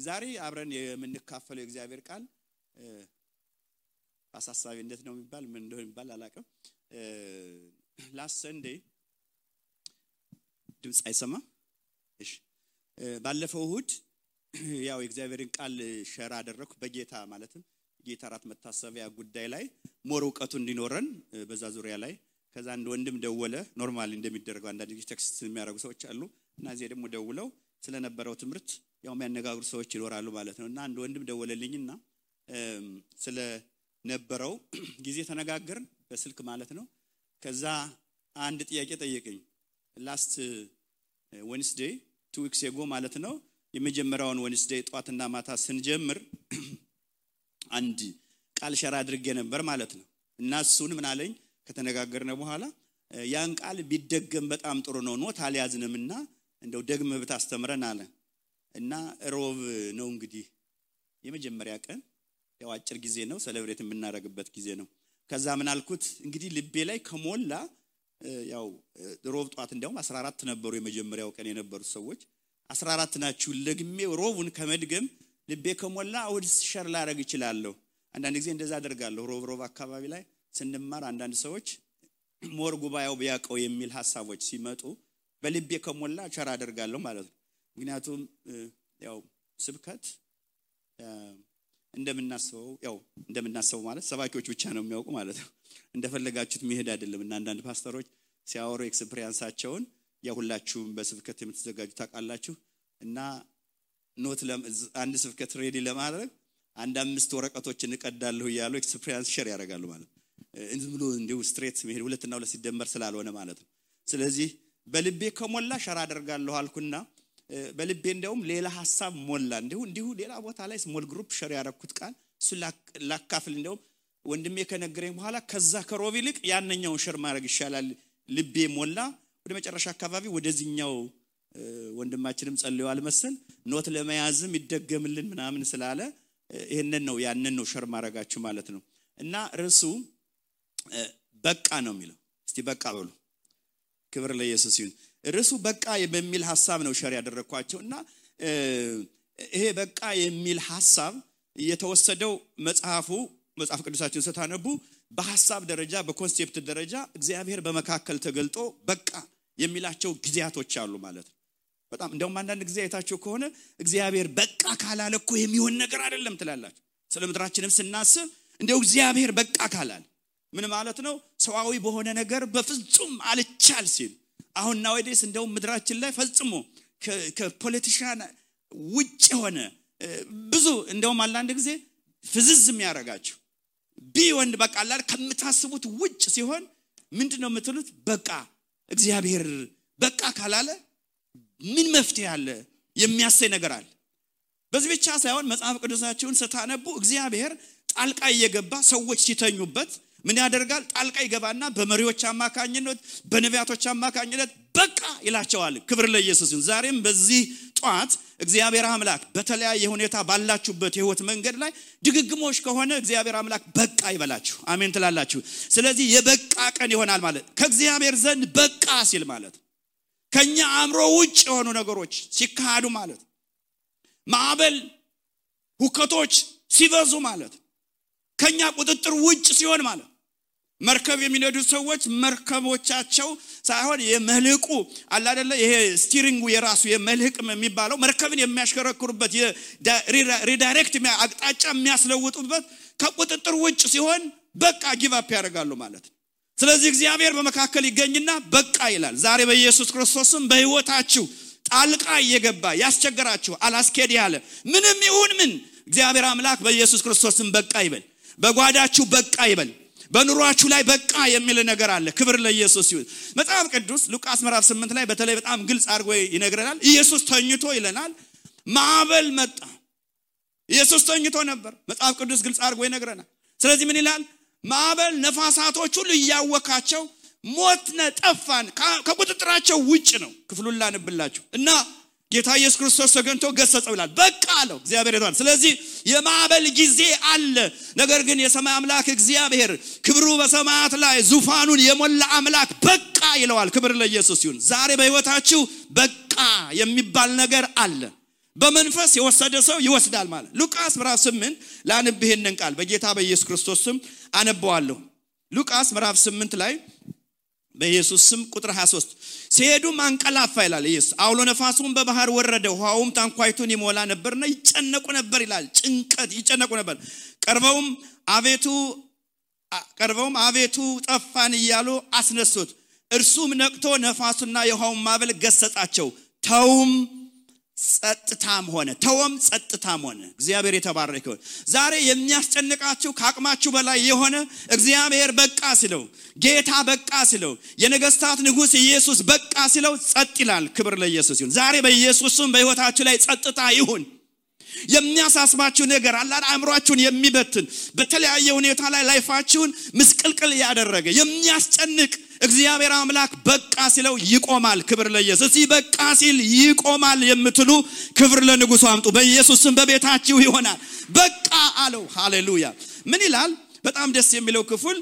ዛሬ አብረን የምንካፈለው እግዚአብሔር ቃል አሳሳቢ እንዴት ነው የሚባል ምን እንደሆነ የሚባል አላቀም last Sunday ድምጽ አይሰማ እሺ ባለፈው እሁድ ያው እግዚአብሔርን ቃል ሼር አደረኩ በጌታ ማለትም ጌታ ራት መታሰቢያ ጉዳይ ላይ ሞር ዕውቀቱ እንዲኖረን በዛ ዙሪያ ላይ ከዛ አንድ ወንድም ደወለ ኖርማሊ እንደሚደረገው አንዳንድ ቴክስት የሚያደርጉ ሰዎች አሉ እና እዚህ ደግሞ ደውለው ስለነበረው ትምርት ያው የሚያነጋግሩ ሰዎች ይኖራሉ ማለት ነውና አንድ ወንድም ደወለልኝና ስለ ነበረው ጊዜ ተነጋገርን በስልክ ማለት ነው ከዛ አንድ ጥያቄ ጠየቀኝ last Wednesday 2 weeks ago ማለት ነው የመጀመሪያውን Wednesday ጧትና ማታ ስንጀምር አንድ ቃል ሸራ አድርጌ ነበር ማለት ነው እና እሱን ምን አለኝ ከተነጋገርነ በኋላ ያን ቃል ቢደገም በጣም ጥሩ ነው ኖት አልያዝንምና እንደው ደግመህ ብታስተምረን አለ እና ሮብ ነው እንግዲህ የመጀመሪያ ቀን ያው አጭር ጊዜ ነው ሴሌብሬት የምናደርግበት ጊዜ ነው ከዛ ምን አልኩት እንግዲህ ልቤ ላይ ከሞላ ያው ሮብ ጧት እንደውም 14 ነበሩ የመጀመሪያው ቀን የነበሩ ሰዎች 14 ናችሁ ለግሜ ሮቡን ከመድገም ልቤ ከሞላ ወድ ሸር ላደርግ ይችላልው አንዳንድ ጊዜ እንደዛ አደርጋለሁ ሮብ አካባቢ ላይ ስንማር አንዳንድ ሰዎች ሞር ጉባኤው ቢያቀው የሚል ሐሳቦች ሲመጡ በልቤ ከሞላ ሸር አደርጋለሁ ማለት ነው ምክንያቱም ያው ስብከት እንደምናስበው ማለት ሰባኪዎች ብቻ ነው የሚያውቁ ማለት ነው እንደፈለጋችሁት መሄድ አይደለም እና አንዳንድ ፓስተሮች ሲያወሩ ኤክስፒሪየንሳቸውን ያሁላችሁም በስብከት የምትዘጋጁ ታውቃላችሁ እና ኖት አንድ ስብከት ሬዲ ለማድረግ አንድ 5 ወረቀቶችን እንቀዳለሁ ይያሉ ኤክስፒሪየንስ ሼር ያደርጋሉ ማለት እንዝብሎ እንደው ስትሬት መሄድ ሁለትና ሁለት ሲደመር ስላልሆነ ማለት ነው ስለዚህ በልቤ ከሞላ ሸራ አደርጋለሁ አልኩና በልቤ እንደውም ሌላ ሐሳብ ሞላ እንዲሁ ሌላ ቦታ ላይ ስሞል ግሩፕ ሼር ያደረኩት ቃል እሱ ላካፍል እንደውም ወንድሜ ከነገረኝ በኋላ ከዛ ከሮብ ይልቅ ያንኛው ሼር ማድረግ ይሻላል ልቤ ሞላ ወደ መጨረሻ አካባቢ ወደዚህኛው ወንድማችንም ጸልየዋል መሰል ኖት ለመያዝም ይደገምልን ምናምን ስላለ ይሄንን ነው ያንን ነው ሼር ማድረጋችሁ ማለት ነው እና ርዕሱ በቃ ነው የሚለው እስቲ በቃ በሉ ክብር ለኢየሱስ ይሁን ርዕሱ በቃ በሚል ሐሳብ ነው ሼር ያደረኳቸውና ይሄ በቃ የሚል ሐሳብ የተወሰደው መጽሐፍ ቅዱሳችን ስታነቡ በሐሳብ ደረጃ በኮንሴፕት ደረጃ እግዚአብሔር በመካከል ተገልጦ በቃ የሚላቸው ጊዜያቶች አሉ ማለት ነው በጣም እንደውም አንዳንድ ጊዜ አይታችሁ ከሆነ እግዚአብሔር በቃ ካላለ እኮ የሚሆን ነገር አይደለም ትላላችሁ ስለምድራችንም ስናስብ እንደው እግዚአብሔር በቃ ካላለ ምን ማለት ነው ሰዋዊ በሆነ ነገር በፍጹም አልቻል ሲል አሁን ናውዴስ እንደው ምድራችን ላይ ፈጽሞ ከፖለቲሻን ውጭ ሆነ ብዙ እንደው አንዳንድ ጊዜ ፍዝዝም ያረጋችሁ ቢወንድ በቃ አላል ከምታስቡት ውጭ ሲሆን ምንድነው የምትሉት በቃ እግዚአብሔር በቃ ካላለ ምን መፍትሄ አለ የሚያሰይ ነገር አለ በዚህ ብቻ ሳይሆን መጽሐፍ ቅዱሳችሁን ስታነቡ እግዚአብሔር ጣልቃ እየገባ ሰዎች ሲተኙበት ምን ያደርጋል ጣልቃ ይገባና በመሪዎች አማካኝነት በነቢያቶች አማካኝነት በቃ ይላቸዋል ክብር ለኢየሱስ ይሁን ዛሬም በዚህ ጧት እግዚአብሔር አምላክ በተለያየ ሁኔታ ባላችሁበት የህይወት መንገድ ላይ ድግግሞሽ ከሆነ እግዚአብሔር አምላክ በቃ ይበላችሁ አሜን ትላላችሁ ስለዚህ የበቃ ቀን ይሆናል ማለት ከእግዚአብሔር ዘንድ በቃ ሲል ማለት ከኛ አእምሮ ውጭ የሆኑ ነገሮች ሲካዱ ማለት ማዕበል ሁከቶች ሲበዙ ማለት ከኛ ቁጥጥር ውጭ ሲሆን ማለት መርከብ የሚነዱ ሰዎች መርከቦቻቸው ሳይሆን የመልህቁ አለ አይደለ ይሄ ስቲሪንጉ የራሱ የመልህቅ የሚባለው መርከብን የሚያሽከረክሩበት የሪዳይሬክት አቅጣጫ የሚያስለውጡበት ከቁጥጥር ውጭ ሲሆን በቃ ጊቭ አፕ ያደርጋሉ ማለት ስለዚህ እግዚአብሔር በመካከል ይገኝና በቃ ይላል ዛሬ በኢየሱስ ክርስቶስም በህይወታችሁ ጣልቃ እየገባ ያስቸገራችሁ አላስኬድ ያለ ምንም ይሁን ምን እግዚአብሔር አምላክ በኢየሱስ ክርስቶስም በቃ ይበል በጓዳችሁ በቃ ይበል በኑሯችሁ ላይ በቃ የሚል ነገር አለ ክብር ለኢየሱስ ይሁን መጽሐፍ ቅዱስ ሉቃስ ምዕራፍ 8 ላይ በተለይ በጣም ግልጽ አድርጎ ይነግረናል ኢየሱስ ተኝቶ ይለናል ማዕበል መጣ ኢየሱስ ተኝቶ ነበር መጽሐፍ ቅዱስ ግልጽ አድርጎ ይነግረናል ስለዚህ ምን ይላል ማዕበል ነፋሳቶች ሁሉ ያወካቸው ሞትነ ጠፋን ከቁጥጥራቸው ውጭ ነው ክፍሉን ላንብላችሁ እና ጌታ ኢየሱስ ክርስቶስ ተገንቶ ገሰጸው ይላል በቃ አለው እግዚአብሔር ይቷል ስለዚህ የማዕበል ጊዜ አለ ነገር ግን የሰማይ አምላክ እግዚአብሔር ክብሩ በሰማያት ላይ ዙፋኑን የሞላ አምላክ በቃ ይለዋል ክብር ለኢየሱስ ይሁን ዛሬ በህይወታችሁ በቃ የሚባል ነገር አለ በመንፈስ የወሰደ ሰው ይወስዳል ማለት ሉቃስ ምዕራፍ 8 ላንብ ይሄንን ቃል በጌታ በኢየሱስ ክርስቶስ ስም አነባዋለሁ ሉቃስ ምዕራፍ 8 ላይ በኢየሱስ ስም ቁጥር 23 ሲሄዱም አንቀላፋ ይላል ኢየሱስ አውሎ ነፋሱም በባህር ወረደ ውሃውም ታንኳይቱን ይሞላ ነበርና ይጨነቁ ነበር ይላል ጭንቀት ይጨነቁ ነበር ቀርበውም አቤቱ ጠፋን እያሉ አስነሱት እርሱም ነቅቶ ነፋሱና የውሃውን ማዕበል ገሰጻቸው ተውም ጸጥታም ሆነ እግዚአብሔር የተባረከ ይሁን ዛሬ የሚያስጨንቃችሁ ከአቅማችሁ በላይ የሆነ እግዚአብሔር በቃ ሲለው ጌታ በቃ ሲለው የነገስታት ንጉስ ኢየሱስ በቃ ሲለው ጸጥ ይላል ክብር ለኢየሱስ ይሁን ዛሬ በኢየሱስ ስም በህይወታችሁ ላይ ጸጥታ ይሁን የሚያሳስባችሁ ነገር አለ አእምሮአችሁን የሚበትን በተለያየ ሁኔታ ላይ ላይፋችሁን ምስቅልቅል ያደረገ የሚያስጨንቅ እግዚአብሔር አምላክ በቃ ሲለው ይቆማል ክብር ለኢየሱስ በቃ ሲል ይቆማል የምትሉ ክብር ለንጉሱ አምጡ በኢየሱስ ስም በቤታችሁ ይሆናል በቃ አለው ሃሌሉያ ምን ይላል በጣም ደስ የሚለው ክፍል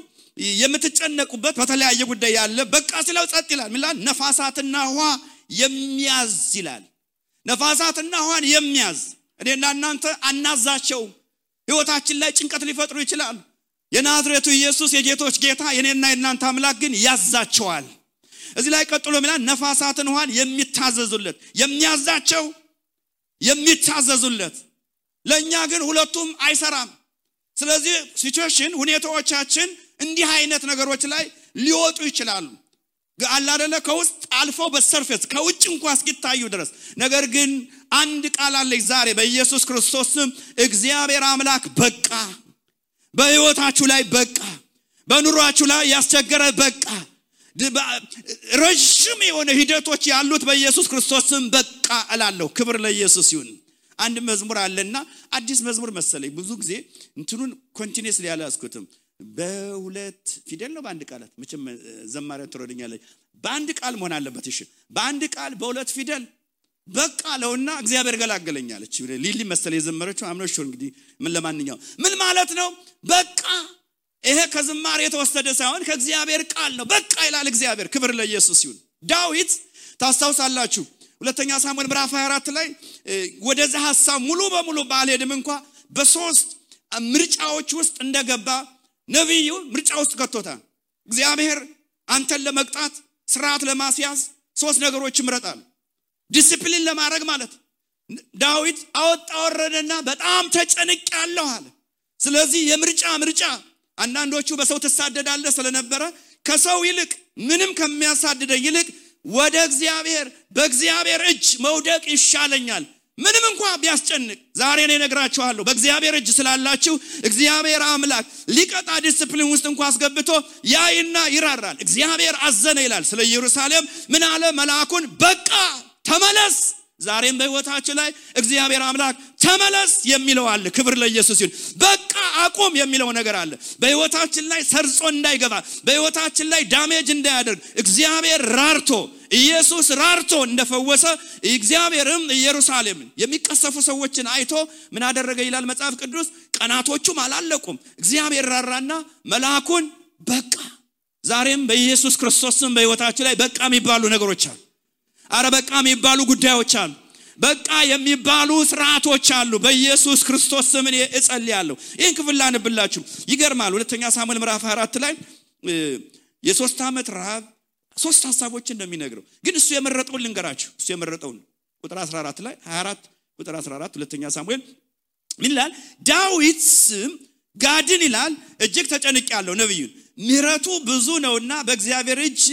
የምትጨነቁበት በተለያየ ጉዳይ ያለ በቃ ሲለው ጸጥ ይላል ምን ይላል ነፋሳትና ውሃ የሚያዝ ይላል ነፋሳትና ውሃን የሚያዝ እኔና እናንተ አናዛቸው ህይወታችን ላይ ጭንቀት ሊፈጥሩ ይችላል የናዝሬቱ ኢየሱስ የጌቶች ጌታ የኔና የናንተ አምላክ ግን ያዛቸዋል እዚህ ላይ ቀጥሎ ማለት ነፋሳትን ውሃን የሚታዘዙለት የሚያዛቸው የሚታዘዙለት ለኛ ግን ሁለቱም አይሰራም ስለዚህ ሲቹዌሽን ሁኔታዎቻችን እንዲህ አይነት ነገሮች ላይ ሊወጡ ይችላሉ አላደለ ከውስጥ አልፎ በሰርፌስ ከውጭ እንኳን እስኪታዩ ድረስ ነገር ግን አንድ ቃል አለ ዛሬ በኢየሱስ ክርስቶስ ስም እግዚአብሔር አምላክ በቃ በህይወታችሁ ላይ በቃ በኑሯችሁ ላይ ያስቸገረ በቃ ረጅም የሆነ ሂደቶች ያሉት በኢየሱስ ክርስቶስ ስም በቃ እላለሁ ክብር ለኢየሱስ ይሁን አንድ መዝሙር አለና አዲስ መዝሙር መሰለኝ ብዙ ጊዜ እንትኑን ኮንቲኒየስሊ ያላስኩትም በሁለት ፊደል ነው በአንድ ቃላት መቼም ዘማሪያ ትሮድኛለች በአንድ ቃል መሆን አለበት እሺ በአንድ ቃል በሁለት ፊደል በቃ ለውና እግዚአብሔር ገላገለኛለች ሊሊ መሰለ የዘመረችው አምኖሽ እንግዲህ ምን ለማንኛው ምን ማለት ነው በቃ ይሄ ከዝማሬ የተወሰደ ሳይሆን ከእግዚአብሔር ቃል ነው በቃ ይላል እግዚአብሔር ክብር ለኢየሱስ ይሁን ዳዊት ታስታውሳላችሁ ሁለተኛ ሳሙኤል ምዕራፍ 24 ላይ ወደዛ ሐሳብ ሙሉ በሙሉ ባልሄድም እንኳን በሶስት ምርጫዎች ውስጥ እንደገባ ነብዩ ምርጫ ውስጥ ከቶታል እግዚአብሔር አንተን ለመቅጣት ስርዓት ለማስያዝ ሶስት ነገሮች ይምረጣል ዲሲፕሊን ለማድረግ ማለት ዳዊት አወጣወረደና በጣም ተጨንቄያለሁ አለ ስለዚህ የምርጫ አንዳንዶቹ በሰው ተሳደዳለ ስለነበረ ከሰው ይልቅ ምንም ከሚያሳድደኝ ይልቅ ወደ እግዚአብሔር በእግዚአብሔር እጅ መውደቅ ይሻለኛል ምንም እንኳን ቢያስጨንቅ ዛሬ እኔ ነግራችኋለሁ በእግዚአብሔር እጅ ስላላችሁ እግዚአብሔር አምላክ ሊቀጣ ዲሲፕሊን ውስጥ እንኳን አስገብቶ ያይና ይራራል እግዚአብሔር አዘነ ይላል ስለ ኢየሩሳሌም ምን አለ መልአኩን በቃ ተመለስ ዛሬም በህይወታችን ላይ እግዚአብሔር አምላክ ተመለስ የሚለው አለ ክብር ለኢየሱስ ይሁን በቃ አቁም የሚለው ነገር አለ በህይወታችን ላይ ሰርጾ እንዳይገባ በህይወታችን ላይ ዳሜጅ እንዳያደርግ እግዚአብሔር ራርቶ ኢየሱስ ራርቶ እንደፈወሰ እግዚአብሔርም ኢየሩሳሌምን የሚቀሰፉ ሰዎችን አይቶ ምን አደረገ ይላል መጽሐፍ ቅዱስ ቀናቶቹም አላለቁም እግዚአብሔር ራራና መልአኩን በቃ ዛሬም በኢየሱስ ክርስቶስም በህይወታችን ላይ በቃ የሚባሉ ነገሮች አሉ አረ በቃ የሚባሉ ጉዳዮች አሉ በቃ የሚባሉ ስርዓቶች አሉ በኢየሱስ ክርስቶስ ስም እኔ እጸልያለሁ ይህን ክፍል ላንብላችሁ ይገርማል ሁለተኛ ሳሙኤል ምዕራፍ 24 ላይ የ3 ዓመት ረሃብ ሶስት ሐሳቦችን እንደሚነግረው ግን እሱ የመረጠውን ልንገራችሁ እሱ የመረጠውን ቁጥር 14 ላይ 24 ቁጥር 14 ሁለተኛ ሳሙኤል ምን ይላል ዳዊት ጋድን ይላል እጅግ ተጨንቄያለሁ ነብዩን ምሕረቱ ብዙ ነውና በእግዚአብሔር እጅ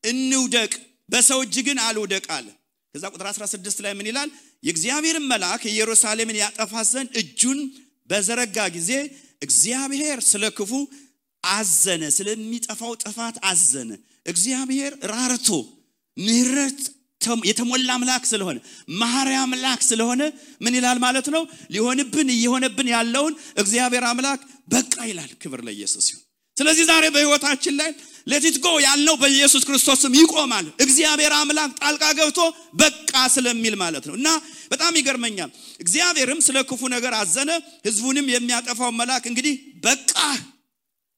እንውደቅ በሰው እጅ ግን አልወደቅ አለ ከዛ ቁጥር 16 ላይ ምን ይላል የእግዚአብሔር መልአክ ኢየሩሳሌምን ያጠፋ ዘንድ እጁን በዘረጋ ጊዜ እግዚአብሔር ስለክፉ አዘነ ስለሚጠፋው ጥፋት አዘነ እግዚአብሔር ራርቶ ምሕረት የተሞላ አምላክ ስለሆነ መሐሪ አምላክ ስለሆነ ምን ይላል ማለት ነው ሊሆንብን ያለውን እግዚአብሔር አምላክ በቃ ይላል ክብር ለኢየሱስ ይሁን ስለዚህ ዛሬ በህይወታችን ላይ ለቲት ጎ ያልነው በኢየሱስ ክርስቶስም ይቆማል እግዚአብሔር አምላክ ጣልቃ ገብቶ በቃ ስለሚል ማለት ነው እና በጣም ይገርመኛል እግዚአብሔርም ስለ ክፉ ነገር አዘነ ህዝቡንም የሚያጠፋው መልአክ እንግዲህ በቃ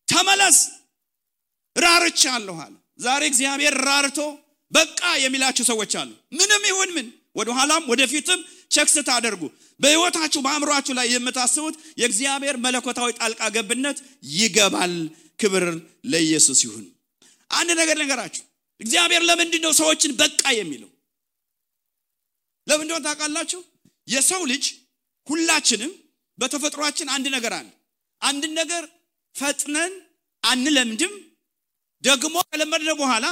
ተመለስ ራርቻለሁ አለ ዛሬ እግዚአብሔር ራርቶ በቃ የሚላችሁ ሰዎች አሉ ምንም ይሁን ምን ወደ ኋላም ወደፊትም ቸክ ስታደርጉ በህይወታችሁ በአእምሮአችሁ ላይ የምታስቡት የእግዚአብሔር መለኮታዊ ጣልቃ ገብነት ይገባል። ክብር ለኢየሱስ ይሁን። አንድ ነገር ነገራችሁ እግዚአብሔር ለምንድን ነው ሰዎችን በቃ የሚለው? ለምንድን ነው ታውቃላችሁ? የሰው ልጅ ሁላችንም በተፈጥሯችን አንድ ነገር አለ። አንድ ነገር ፈጥነን አንለምድም። ደግሞ ከለመድነው በኋላ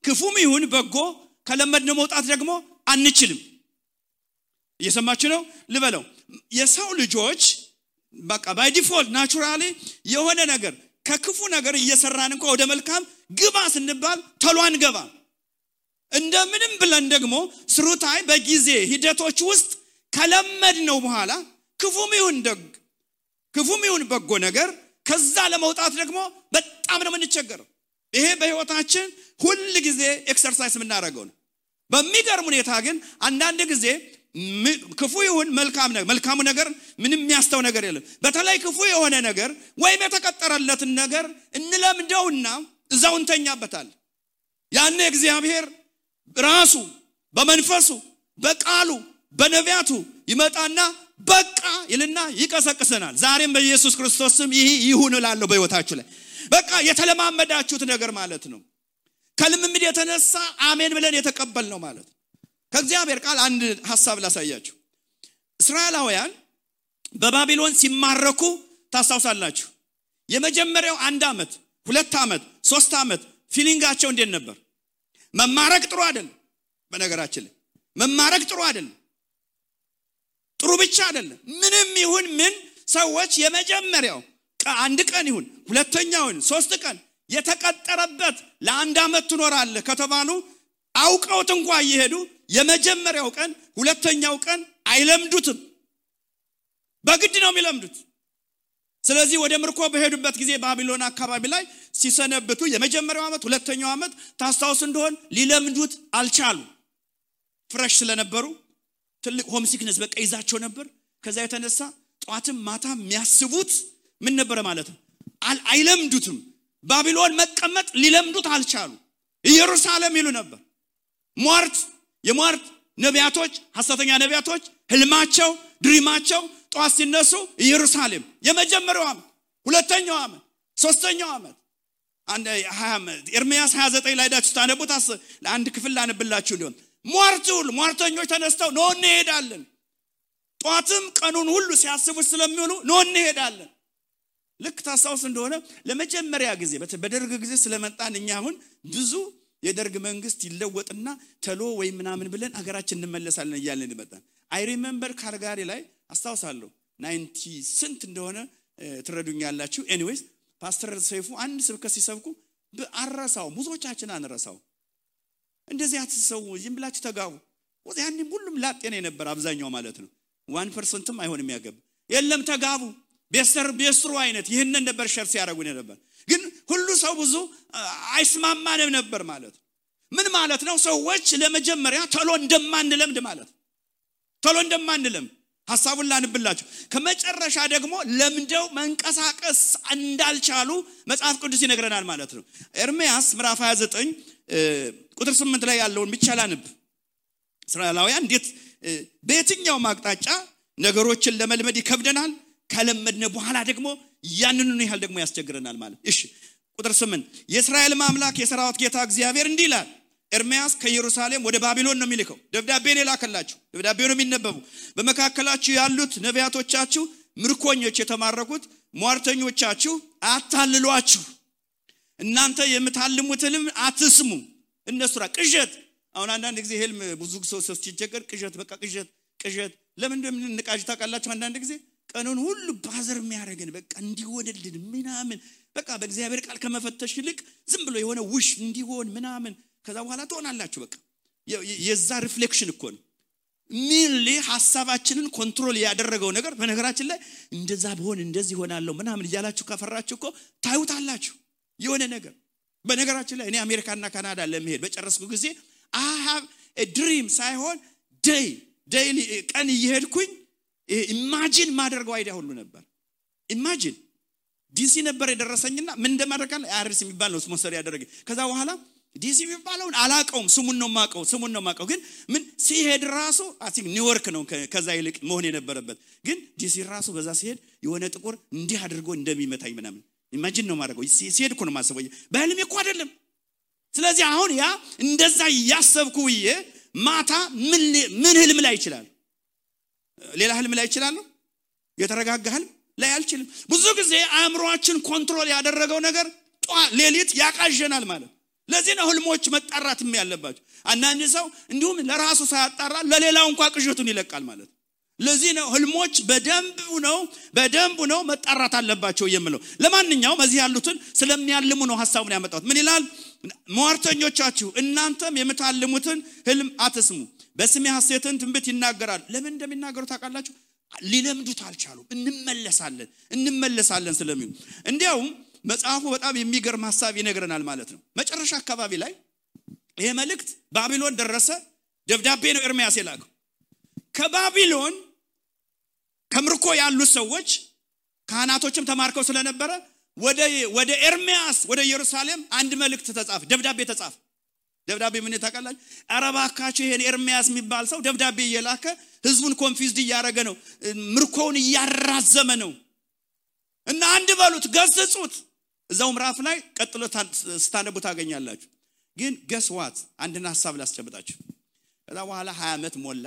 ክፉም ይሁን በጎ ከለመድነው መውጣት ደግሞ አንችልም። እየሰማችሁ ነው ልበለው። የሰው ልጆች በቃ ባይ ዲፎልት ናቹራሊ የሆነ ነገር ከክፉ ነገር እየሰራን እንኳን ወደ መልካም ግባ ስንባል ቶሎ አንገባም። እንደምንም ብለን ደግሞ ስሩታይ በጊዜ ሂደቶች ውስጥ ከለመድነው በኋላ ክፉም ይሁን በጎ ነገር ከዛ ለመውጣት ደግሞ በጣም ነው የምንቸገረው። ይሄ በህይወታችን ሁሉ ጊዜ ኤክሰርሳይዝ የምናደርገው ነው። በሚገርም ሁኔታ ግን አንዳንድ ጊዜ ክፉ ይሁን መልካሙ ነገር ምንም የሚያስተው ነገር የለም። በተለይ ክፉ የሆነ ነገር ወይም የተቀጠረለትን ነገር እንለምደውና እዛው እንተኛበታለን። ያኔ እግዚአብሔር ራሱ በመንፈሱ በቃሉ በነቢያቱ ይመጣና በቃ ይልና ይቀሰቅሰናል። ዛሬም በኢየሱስ ክርስቶስ ስም ይሄ ይሁን እላለሁ በህይወታችሁ ላይ። በቃ የተለማመዳችሁት ነገር ማለት ነው። ከልምምድ የተነሳ አሜን ብለን የተቀበልነው ማለት ነው። ከእግዚአብሔር ቃል አንድ ሐሳብ ላሳያችሁ። እስራኤላውያን በባቢሎን ሲማረኩ ታስታውሳላችሁ። የመጀመሪያው 1 ዓመት 2 ዓመት 3 ዓመት ፊሊንጋቸው እንዴት ነበር? መማረክ ጥሩ አይደለም። በነገራችን ላይ መማረክ ጥሩ አይደለም። ጥሩ ብቻ አይደለም። ምንም ይሁን ምን ሰዎች የመጀመሪያው 1 ቀን ይሁን 2ኛው ይሁን 3 ቀን የተቀጠረበት ለ1 ዓመት ትኖራለህ ከተባሉ አውቀውት እንኳን ይሄዱ የመጀመሪያው ቀን 2ኛው ቀን አይለምዱትም። በግድ ነው የሚለምዱት። ስለዚህ ወደ ምርኮ በሄዱበት ጊዜ ባቢሎን አካባቢ ላይ ሲሰነብቱ የመጀመሪያው ዓመት 2ኛው ዓመት ታስታውስ እንደሆነ ሊለምዱት አልቻሉ። ፍሬሽ ስለነበሩ ትልቅ ሆም ሲክነስ በቃ ይዛቸው ነበር። ከዛ የተነሳ ጧትም ማታም የሚያስቡት ምን ነበር ማለት ነው? አይለምዱትም። ባቢሎን መቀመጥ ሊለምዱት አልቻሉ። ኢየሩሳሌም ይሉ ነበር። የሟርት ነቢያቶች ሐሰተኛ ነቢያቶች ህልማቸው ድሪማቸው ጧት ሲነሱ ኢየሩሳሌም የመጀመሪያው ዓመት 2ኛው ዓመት 3ኛው ዓመት ኤርምያስ 29 ላይ ዳችሁ ታነቡት። አንድ ክፍል ላነብላችሁ ሊሆን ሟርተኞች ተነስተው ነው እንሄዳለን። ጧትም ቀኑን ሁሉ ሲያስቡት ስለሚውሉ ነው እንሄዳለን። ልክ ታስታውስ እንደሆነ ለመጀመሪያ ጊዜ በደርግ ጊዜ ስለመጣን እኛ አሁን ብዙ የደርግ መንግስት ይለወጥና ተሎ ወይ ምናምን ብለን አገራችን እንመለሳለን እያልን እንመጣን። አይ ሪሜምበር ካርጋሪ ላይ አስታውሳለሁ 90 ስንት እንደሆነ ትረዱኛላችሁ። ኤኒዌይስ ፓስተር ሰይፉ አንድ ስብከት ሲሰብኩ በአራሳው ብዙዎቻችን አንረሳው። እንደዚህ አትሰው ዝም ብላችሁ ተጋቡ። ወዲያኔ ሁሉም ላጤነ ነበር አብዛኛው ማለት ነው። 1%ም አይሆንም ያገብ የለም ተጋቡ ቤስተሩ አይነት ይሄንን ነበር ሸርስ ያደርጉ ነበር። ግን ሁሉ ሰው ብዙ አይስማማንም ነበር ማለት ምን ማለት ነው? ሰዎች ለመጀመሪያ ቶሎ እንደማንለምድ ማለት ቶሎ እንደማንለምድ ሐሳቡን ላንብላችሁ። ከመጨረሻ ደግሞ ለምደው መንቀሳቀስ እንዳልቻሉ መጽሐፍ ቅዱስ ይነግረናል ማለት ነው። ኤርምያስ ምዕራፍ 29 ቁጥር 8 ላይ ያለውን ብቻ ላንብ። እስራኤላውያን እንዴት በየትኛው ማቅጣጫ ነገሮችን ለመልመድ ይከብደናል፣ ከለመድነ በኋላ ደግሞ ያንኑን ይያል ደግሞ ያስቸግረናል ማለት። እሺ ቁጥር 8 የእስራኤል አምላክ የሰራዊት ጌታ እግዚአብሔር እንዲህ ይላል። ኤርምያስ ከኢየሩሳሌም ወደ ባቢሎን ነው የሚልከው። ደብዳቤን ይላከላችሁ። ደብዳቤው ነው የሚነበቡ። በመካከላችሁ ያሉት ነቢያቶቻችሁ ምርኮኞች የተማረኩት ሟርተኞቻችሁ አታልሏችሁ። እናንተ የምታልሙትንም አትስሙ። እነሱ ቅዠት። አሁን አንዳንድ ጊዜ ህልም ብዙ ሰው ሲቸገር ቅዠት በቃ ቅዠት ለምን እንደምንቃዥ ታውቃላችሁ? አንዳንድ ጊዜ ቀኑን ሁሉ ባዘር የሚያደርገን በቃ እንዲሆንልን ምናምን በቃ በእግዚአብሔር ቃል ከመፈተሽ ይልቅ ዝም ብሎ የሆነ ውሽ እንዲሆን ምናምን ከዛ በኋላ ትሆናላችሁ። በቃ የዛ ሪፍሌክሽን እኮ ነው። ሚሊ ሐሳባችንን ኮንትሮል ያደረገው ነገር በነገራችን ላይ እንደዛ ቢሆን እንደዚህ ሆናለሁ ምናምን እያላችሁ ከፈራችሁ እኮ ታዩታላችሁ የሆነ ነገር። በነገራችን ላይ እኔ አሜሪካና ካናዳ ለመሄድ በጨረስኩ ጊዜ I have a dream ሳይሆን ዴይሊ ቀን እየሄድኩኝ ኢማጂን ማድረገው አይዲያ ሁሉ ነበር። ኢማጂን ዲሲ ነበር የደረሰኝና ምን እንደማደርጋለ አርስ የሚባል ነው ስፖንሰር ያደረገ። ከዛ በኋላ ዲሲ የሚባለውን አላቀውም ስሙን ነው ማቀው ግን ምን ሲሄድ ራሱ አቲክ ኒውዮርክ ነው ከዛ ይልቅ መሆን የነበረበት ግን ዲሲ ራሱ በዛ ሲሄድ የሆነ ጥቁር እንዲህ አድርጎ እንደሚመታኝ ምናምን ኢማጂን ነው ማድረገው ሲሄድ እኮ ነው ማሰበው በህልሜ እኮ አይደለም ስለዚህ አሁን ያ እንደዛ ያሰብኩዬ ማታ ምን ህልም ላይ ይችላል ሌላ ህልም ላይ ይችላል የተረጋጋ ህልም ላይ አልችልም ብዙ ጊዜ አእምሮአችን ኮንትሮል ያደረገው ነገር ሌሊት ያቃዠናል ማለት ለዚህ ነው ህልሞች መጣራትም ያለባቸው አንዳንድ ሰው እንዲሁም ለራሱ ሳያጣራ ለሌላው እንኳን ቅዠቱን ይለቃል ማለት ለዚህ ነው ህልሞች በደንብ ነው መጣራት አለባቸው የምለው ለማንኛውም እዚህ ያሉትን ስለሚያልሙ ነው ሐሳቡን ያመጣሁት ምን ይላል ሟርተኞቻችሁ እናንተም የምታልሙትን ህልም አትስሙ በስሜ ሐሰትን ትንቢት ይናገራል ለምን እንደሚናገሩ ታውቃላችሁ ሊለምዱት አልቻሉም እንመለሳለን ስለሚሉ እንዲያውም መጽሐፉ በጣም የሚገርም ሐሳብ ይነግረናል ማለት ነው መጨረሻ አካባቢ ላይ ይሄ መልእክት ባቢሎን ደረሰ ደብዳቤ ነው ኤርሚያስ የላከው ከባቢሎን ከምርኮ ያሉ ሰዎች ካህናቶችም ተማርከው ስለነበረ ወደ ኤርሚያስ ወደ ኢየሩሳሌም አንድ መልእክት ተጻፈ ደብዳቤ ምን ታውቃላችሁ አረባካችሁ ይሄን ኤርሚያስ የሚባል ሰው ደብዳቤ እየላከ ህዝቡን ኮንፊውዝድ እያረገ ነው ምርኮውን እያራዘመ ነው እና አንድ በሉት ገስጹት እዛው ምዕራፍ ላይ ቀጥሎ ስታነቡ ታገኛላችሁ ግን ገስዋት አንድና ሐሳብ ላስጨብጣችሁ ከዛ በኋላ 20 ዓመት ሞላ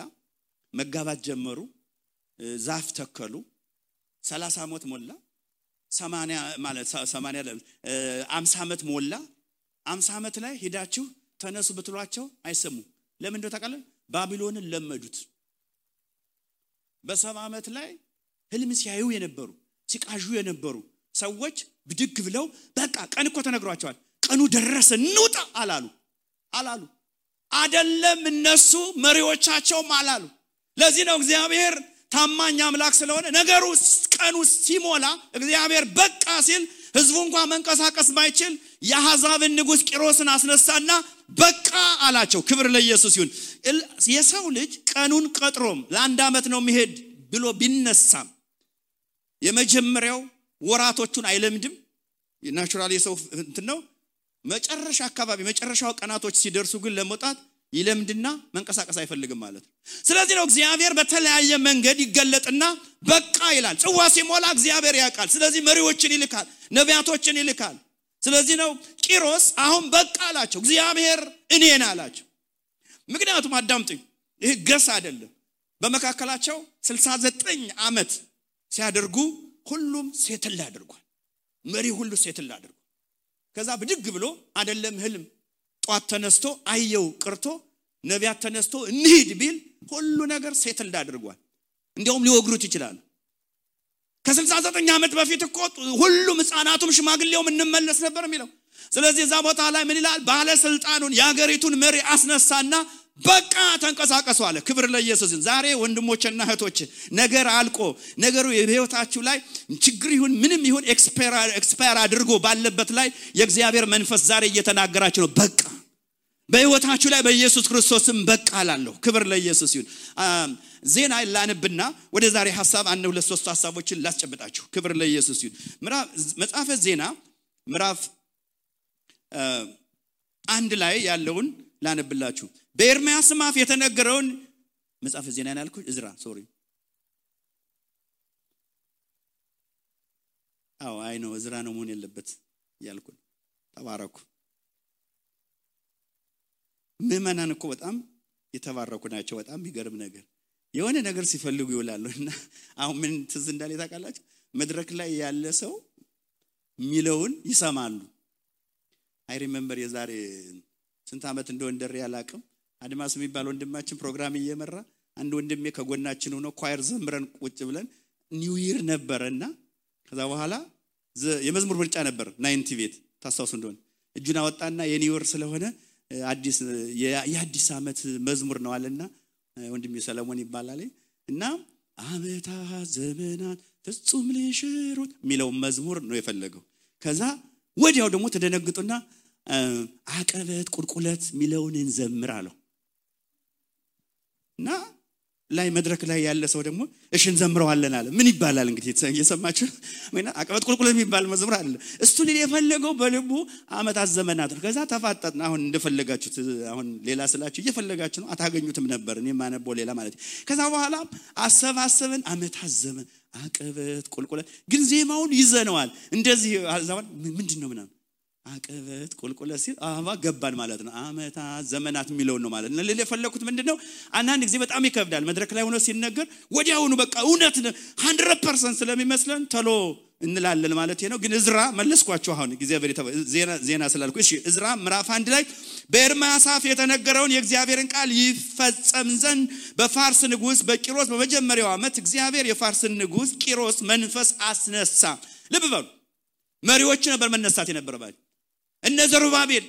መጋባት ጀመሩ ዛፍ ተከሉ 30 ዓመት ሞላ 80 ማለት 80 50 ዓመት ሞላ 50 ዓመት ላይ ሄዳችሁ ተነሱ ብትሏቸው አይሰሙ ለምን እንደው ታውቃለህ ባቢሎንን ለመዱት በ70 ዓመት ላይ ህልም ሲያዩ የነበሩ ሲቃዡ የነበሩ ሰዎች ብድግ ብለው በቃ ቀን እኮ ተነግሯቸዋል ቀኑ ደረሰ እንውጣ አላሉ አይደለም እነሱ መሪዎቻቸውም አላሉ ለዚህ ነው እግዚአብሔር ታማኝ አምላክ ስለሆነ ነገሩ ቀኑ ሲሞላ እግዚአብሔር በቃ ሲል ህዝቡ እንኳን መንቀሳቀስ ማይችል የአሕዛብን ንጉስ ቂሮስን አስነሳና በቃ አላቸው ክብር ለኢየሱስ ይሁን የሰው ልጅ ቀኑን ቀጥሮም ለአንድ ዓመት ነው የሚሄድ ብሎ ቢነሳም የመጀመሪያው ወራቶቹን አይለምድም ናቹራሊ የሰው እንትን ነው መጨረሻ አካባቢ መጨረሻው ቀናቶች ሲደርሱ ግን ለመውጣት ይለምድና መንቀሳቀስ አይፈልግም ማለት ስለዚህ ነው እግዚአብሔር በተለያየ መንገድ ይገለጥና በቃ ይላል ጽዋ ሲሞላ እግዚአብሔር ያውቃል ስለዚህ መሪዎችን ይልካል ነቢያቶችን ይልካል ስለዚህ ነው ቂሮስ አሁን በቃ አላቸው እግዚአብሔር እኔን አላቸው ምክንያቱም አዳምጡኝ ይሄ ገስ አይደለም በመካከላቸው 69 ዓመት ሲያደርጉ ሁሉም ሴትል አድርጓል መሪ ሁሉ ሴትል አድርጓል ከዛ ብድግ ብሎ አይደለም ህልም ጧት ተነስቶ አየው ቅርቶ ነቢያት ተነስቶ እንሂድ ቢል ሁሉ ነገር ሴትል አድርጓል እንዲያውም ሊወግሩት ይችላል ከ69 ዓመት በፊት እኮ ሁሉም ህፃናቱም ሽማግሌውም እንመለስ ነበር የሚለው ስለዚህ እዛ ቦታ ላይ ምን ይላል ባለስልጣኑን ያገሪቱን መሪ አስነሳና በቃ ተንቀሳቀሱ አለ ክብር ለኢየሱስ ዛሬ ወንድሞችና እህቶች ነገር አልቆ ነገሩ የህይወታችሁ ላይ ችግር ይሁን ምንም ይሁን ኤክስፓየር አድርጎ ባለበት ላይ የእግዚአብሔር መንፈስ ዛሬ እየተናገራችሁ ነው በቃ በህይወታችሁ ላይ በኢየሱስ ክርስቶስም በቃ አላለሁ ክብር ለኢየሱስ ይሁን ዜና ላንብና ወደ ዛሬ ሐሳብ አንድ ሁለት ሶስት ሐሳቦችን ላስጨብጣችሁ ክብር ለኢየሱስ ይሁን መጽሐፈ ዜና ምዕራፍ 1 ላይ ያለውን ላንብላችሁ በኤርሚያስ አፍ የተነገረውን መጽሐፈ ዜና ያልኩት እዝራ አይ ነው እዝራ ነው መሆን ያለበት ያልኩት ተባረኩ ምእመናን እኮ በጣም የተባረኩ ናቸው በጣም የሚገርም ነገር የሆነ ነገር ሲፈልጉ ይውላሉና አሁን ምን ትዝ እንዳለ ታውቃላችሁ መድረክ ላይ ያለ ሰው ሚለውን ይሰማሉ አይ ሪሜምበር የዛሬ ስንት ዓመት እንደወንደር ያላቀም አድማስ የሚባል ወንድማችን ፕሮግራም እየመራ አንድ ወንድሜ ከጎናችን ሆኖ ኳየር ዘምረን ቁጭ ብለን ኒው ይር ነበርና ከዛ በኋላ የመዝሙር ምርጫ ነበር 90 ቤት ታስታውሱ እንደሆነ እጁን አወጣና የኒው ይር ስለሆነ አዲስ የአዲስ ዓመት መዝሙር ነው አለና ወንድሜ ሰለሞን ይባላል እና አመታ ዘመናት ፍጹም ሊሽሩት ሚለው መዝሙር ነው የፈለገው ከዛ ወዲያው ደግሞ ተደነግጡና አቀበት ቁልቁለት ሚለውን እንዘምር አለው እና ላይ መድረክ ላይ ያለ ሰው ደግሞ እሺ እንዘምረዋለን አለ ምን ይባላል እንግዲህ እየሰማችሁ ወይና አቀበት ቁልቁል የሚባል መዝሙር አለ እሱ ሊል የፈለገው በልቡ አመታት ዘመናት ነው ከዛ ተፋጠጥና አሁን እንደፈለጋችሁት አሁን ሌላ ስላችሁ እየፈለጋችሁ ነው አታገኙትም ነበር እኔ ማነበው ሌላ ማለት ከዛ በኋላ አሰባሰበን አመታት ዘመን አቀበት ቁልቁል ግን ዜማውን ይዘነዋል እንደዚህ አዛውን ምንድነው ምናምን አቀበት ቁልቁል ሲል አባ ገባን ማለት ነው አመታት ዘመናት የሚለው ነው ማለት ነው ለፈለኩት ምንድነው አንዳንድ ጊዜ በጣም ይከብዳል መድረክ ላይ ሆኖ ሲነገር ወዲያውኑ በቃ እውነት 100% ስለሚመስለን ተሎ እንላለን ማለት ነው ግን እዝራ መለስኳችሁ አሁን እግዚአብሔር ዜና ስላልኩ እሺ እዝራ ምዕራፍ 1 ላይ በኤርምያስ አፍ የተነገረውን የእግዚአብሔርን ቃል ይፈጸም ዘንድ በፋርስ ንጉስ በቂሮስ በመጀመሪያው አመት እግዚአብሔር የፋርስን ንጉስ ቂሮስ መንፈስ አስነሳ ልብ በሉ መሪዎች ነበር መነሳት የነበረባቸው እነ ዘሩባቤል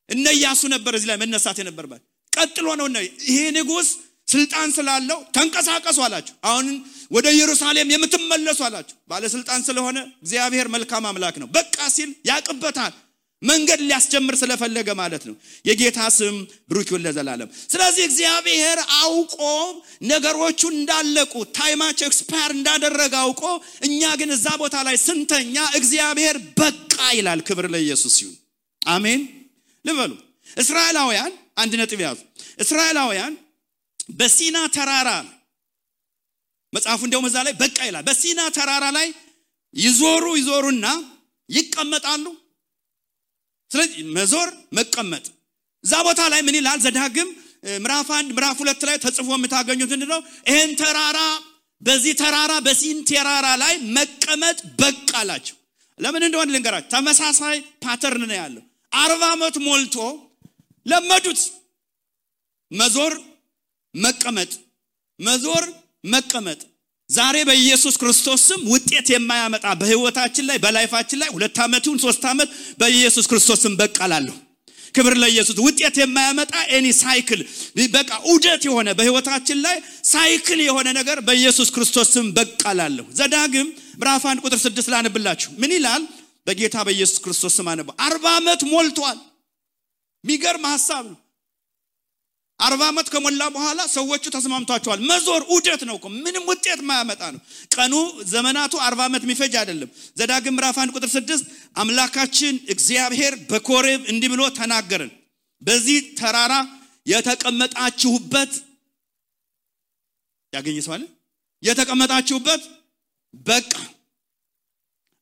እነ ኢያሱ ነበር እዚህ ላይ መነሳት የነበረባቸው ቀጥሎ ነው ይሄ ንጉስ ስልጣን ስላለው ተንቀሳቀሱ አላችሁ አሁን ወደ ኢየሩሳሌም የምትመለሱ አላችሁ ባለ ስልጣን ስለሆነ እግዚአብሔር መልካም አምላክ ነው በቃ ሲል ያቀበታል መንገድ ሊያስጀምር ስለፈለገ ማለት ነው የጌታ ስም ብሩክ ይሁን ለዘላለም ስለዚህ እግዚአብሔር አውቆ ነገሮቹ እንዳለቁ ታይማቸው ኤክስፓየር እንዳደረገ አውቆ እኛ ግን እዛ ቦታ ላይ ስንተኛ እግዚአብሔር በቃ ይላል ክብር ለኢየሱስ ይሁን አሜን ልበሉ እስራኤላውያን አንድ ነጥብ ያዙ እስራኤላውያን በሲና ተራራ መጽሐፉ እንደውም እዛ ላይ በቃ ይላል በሲና ተራራ ላይ ይዞሩና ይቀመጣሉ ስለዚህ መዞር መቀመጥ እዛ ቦታ ላይ ምን ይላል ዘዳግም ምዕራፍ 1 ምዕራፍ 2 ላይ ተጽፎ የምታገኙት እንደው ይሄን ተራራ በዚህ ተራራ በሲን ተራራ ላይ መቀመጥ በቃላችሁ ለምን እንደሆነ ልንገራችሁ ተመሳሳይ ፓተርን ነው ያለው 40 አመት ሞልቶ ለመዱት መዞር መቀመጥ ዛሬ በኢየሱስ ክርስቶስ ስም ውጤት የማያመጣ በህይወታችን ላይ በላይፋችን ላይ 2 አመቱን 3 አመት በኢየሱስ ክርስቶስ ስም በቃላለሁ ክብር ለኢየሱስ ውጤት የማያመጣ ኤኒ ሳይክል በቃ ዑደት የሆነ በህይወታችን ላይ ሳይክል የሆነ ነገር በኢየሱስ ክርስቶስ ስም በቃላለሁ ዘዳግም ምዕራፍ 1 ቁጥር 6 ላነብላችሁ ምን ይላል በጌታ በኢየሱስ ክርስቶስ ስም አነባ 40 አመት ሞልቷል ሚገርም ሐሳብ ነው 40 አመት ከሞላ በኋላ ሰዎቹ ተስማምቷቸዋል መዞር ዑደት ነው ምንም ውጤት ማያመጣ ነው ቀኑ ዘመናቱ 40 አመት የሚፈጅ አይደለም ዘዳግም ምዕራፍ 1 ቁጥር 6 አምላካችን እግዚአብሔር በኮሬብ እንዲህ ብሎ ተናገረን በዚህ ተራራ የተቀመጣችሁበት ያገኘሰዋል የተቀመጣችሁበት በቃ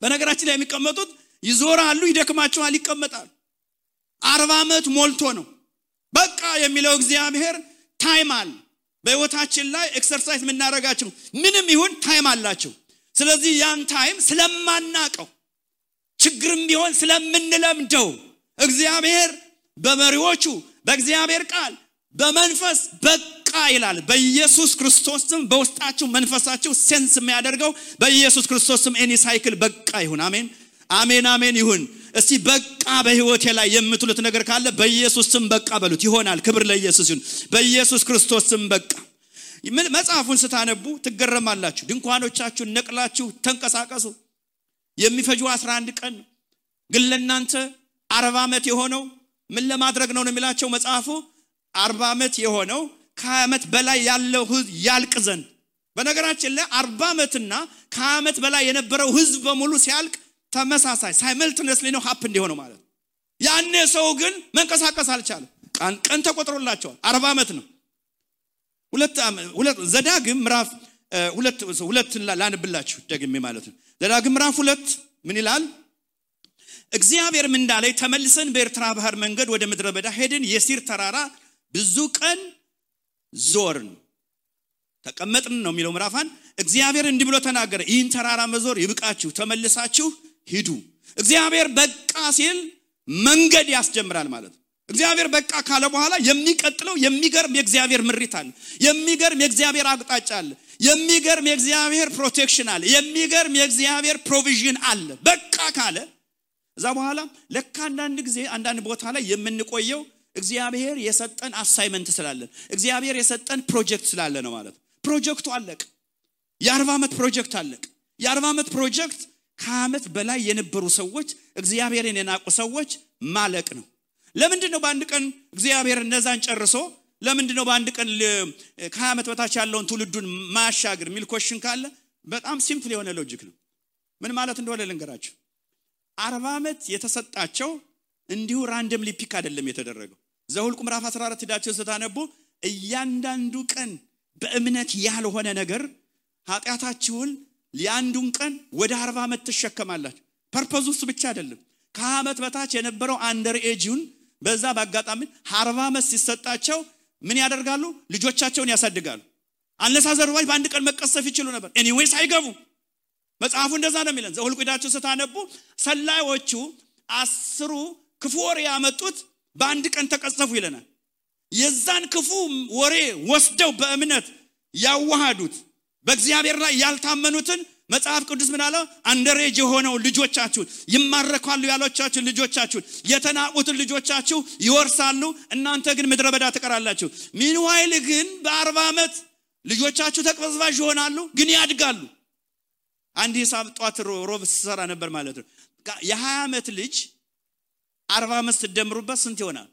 በነገራችን ላይ የሚቀመጡት ይዞራሉ ይደክማቸዋል ይቀመጣሉ 40 አመት ሞልቶ ነው በቃ የሚለው እግዚአብሔር ታይም አለ በህይወታችን ላይ ኤክሰርሳይዝ ምናረጋቸው ምንም ይሁን ታይም አላቸው ስለዚህ ያን ታይም ስለማናቀው ችግርም ቢሆን ስለምንለምደው እግዚአብሔር በመሪዎቹ በእግዚአብሔር ቃል በመንፈስ በቃ ይላል በኢየሱስ ክርስቶስም በውስጣችሁ መንፈሳችሁ ሴንስ የሚያደርገው በኢየሱስ ክርስቶስም ኤኒ ሳይክል በቃ ይሁን አሜን አሜን አሜን ይሁን እስቲ በቃ በህይወቴ ላይ የምትሉት ነገር ካለ በኢየሱስ ስም በቃ በሉት ይሆናል ክብር ለኢየሱስ ይሁን በኢየሱስ ክርስቶስ ስም በቃ መጽሐፉን ስታነቡ ትገረማላችሁ ድንኳኖቻችሁን ነቅላችሁ ተንቀሳቀሱ የሚፈጁ 11 ቀን ግን ለእናንተ 40 አመት የሆነው ምን ለማድረግ ነው የሚላቸው መጽሐፉ 40 አመት የሆነው ከአመት በላይ ያለው ህዝብ ያልቅ ዘንድ በነገራችን ላይ 40 አመትና ከአመት በላይ የነበረው ህዝብ በሙሉ ሲያልቅ ተመሳሳይ ሳይመልትነስሊ ነው ሀፕ እንዲሆነው ማለት ያኔ ሰው ግን መንቀሳቀስ አልቻለም ቀን ተቆጥሮላቸዋል 40 አመት ነው ሁለት ዘዳግም ምዕራፍ 2 ላንብላችሁ ደግሜ ማለት ነው ዘዳግም ምዕራፍ 2 ምን ይላል እግዚአብሔር ምን እንዳለ ተመልሰን በኤርትራ ባህር መንገድ ወደ ምድረ በዳ ሄድን የሲር ተራራ ብዙ ቀን ዞርን ተቀመጥን ነው የሚለው ምዕራፍ 1 እግዚአብሔር እንዲህ ብሎ ተናገረ ይህን ተራራ መዞር ይብቃችሁ ተመልሳችሁ ሂዱ እግዚአብሔር በቃ ሲል መንገድ ያስጀምራል ማለት እግዚአብሔር በቃ ካለ በኋላ የሚቀጥለው የሚገርም የእግዚአብሔር ምሪት አለ የሚገርም የእግዚአብሔር አቅጣጫ አለ የሚገርም የእግዚአብሔር ፕሮቴክሽን አለ የሚገርም የእግዚአብሔር ፕሮቪዥን አለ በቃ ካለ እዛ በኋላ ለካ አንዳንድ ጊዜ አንዳንድ ቦታ ላይ የምንቆየው እግዚአብሔር የሰጠን አሳይመንት ስላለ እግዚአብሔር የሰጠን ፕሮጀክት ስላለ ነው ማለት ፕሮጀክቱ አለቀ የ40 አመት ፕሮጀክት አለቀ የ40 አመት ፕሮጀክት ከአመት በላይ የነበሩ ሰዎች እግዚአብሔርን የናቁ ሰዎች ማለቅ ነው ለምንድን ነው በአንድ ቀን እግዚአብሔር እነዛን ጨርሶ ለምንድን ነው በአንድ ቀን ከ20 ዓመት በታች ያለውን ትውልዱን ማሻገር የሚል ኮሽን ካለ በጣም ሲምፕል የሆነ ሎጂክ ነው። ምን ማለት እንደሆነ ልንገራችሁ። 40 ዓመት የተሰጣቸው እንዲሁ ራንደምሊ ፒክ አይደለም የተደረገው። ዘኍልቍ ምዕራፍ 14 ሄዳችሁ ስታነቡ እያንዳንዱ ቀን በእምነት ያልሆነ ነገር ኃጢአታችሁን ለአንዱን ቀን ወደ 40 ዓመት ተሸከማላችሁ። ፐርፐዙ እሱ ብቻ አይደለም። ከ20 ዓመት በታች የነበረው አንደር ኤጅን በዛ ባጋጣሚ 40 ዓመት ሲሰጣቸው ምን ያደርጋሉ? ልጆቻቸውን ያሳድጋሉ። አነሳዘሩባይ በአንድ ቀን መቀሰፍ ይችሉ ነበር። ኤኒዌይስ አይገቡ። መጽሐፉ እንደዛ ነው የሚለን። ዘኍልቍ ሄዳችሁ ስታነቡ ሰላዮቹ 10 ክፉ ወሬ ያመጡት በአንድ ቀን ተቀሰፉ ይለናል። የዛን ክፉ ወሬ ወስደው በእምነት ያዋሃዱት በእግዚአብሔር ላይ ያልታመኑትን መጽሐፍ ቅዱስ ምን አለ? አንደሬጅ የሆነው ልጆቻችሁን ይማረካሉ ያሏቻችሁ ልጆቻችሁን የተናቁትን ልጆቻችሁ ይወርሳሉ፣ እናንተ ግን ምድረ በዳ ትቀራላችሁ። ሚንዋይል ግን በ40 ዓመት ልጆቻችሁ ተቅበዝባዥ ይሆናሉ፣ ግን ያድጋሉ። አንድ ሂሳብ ጧት ሮብ ሰራ ነበር ማለት ነው። የ20 ዓመት ልጅ 40 ዓመት ሲደምሩበት ስንት ይሆናል?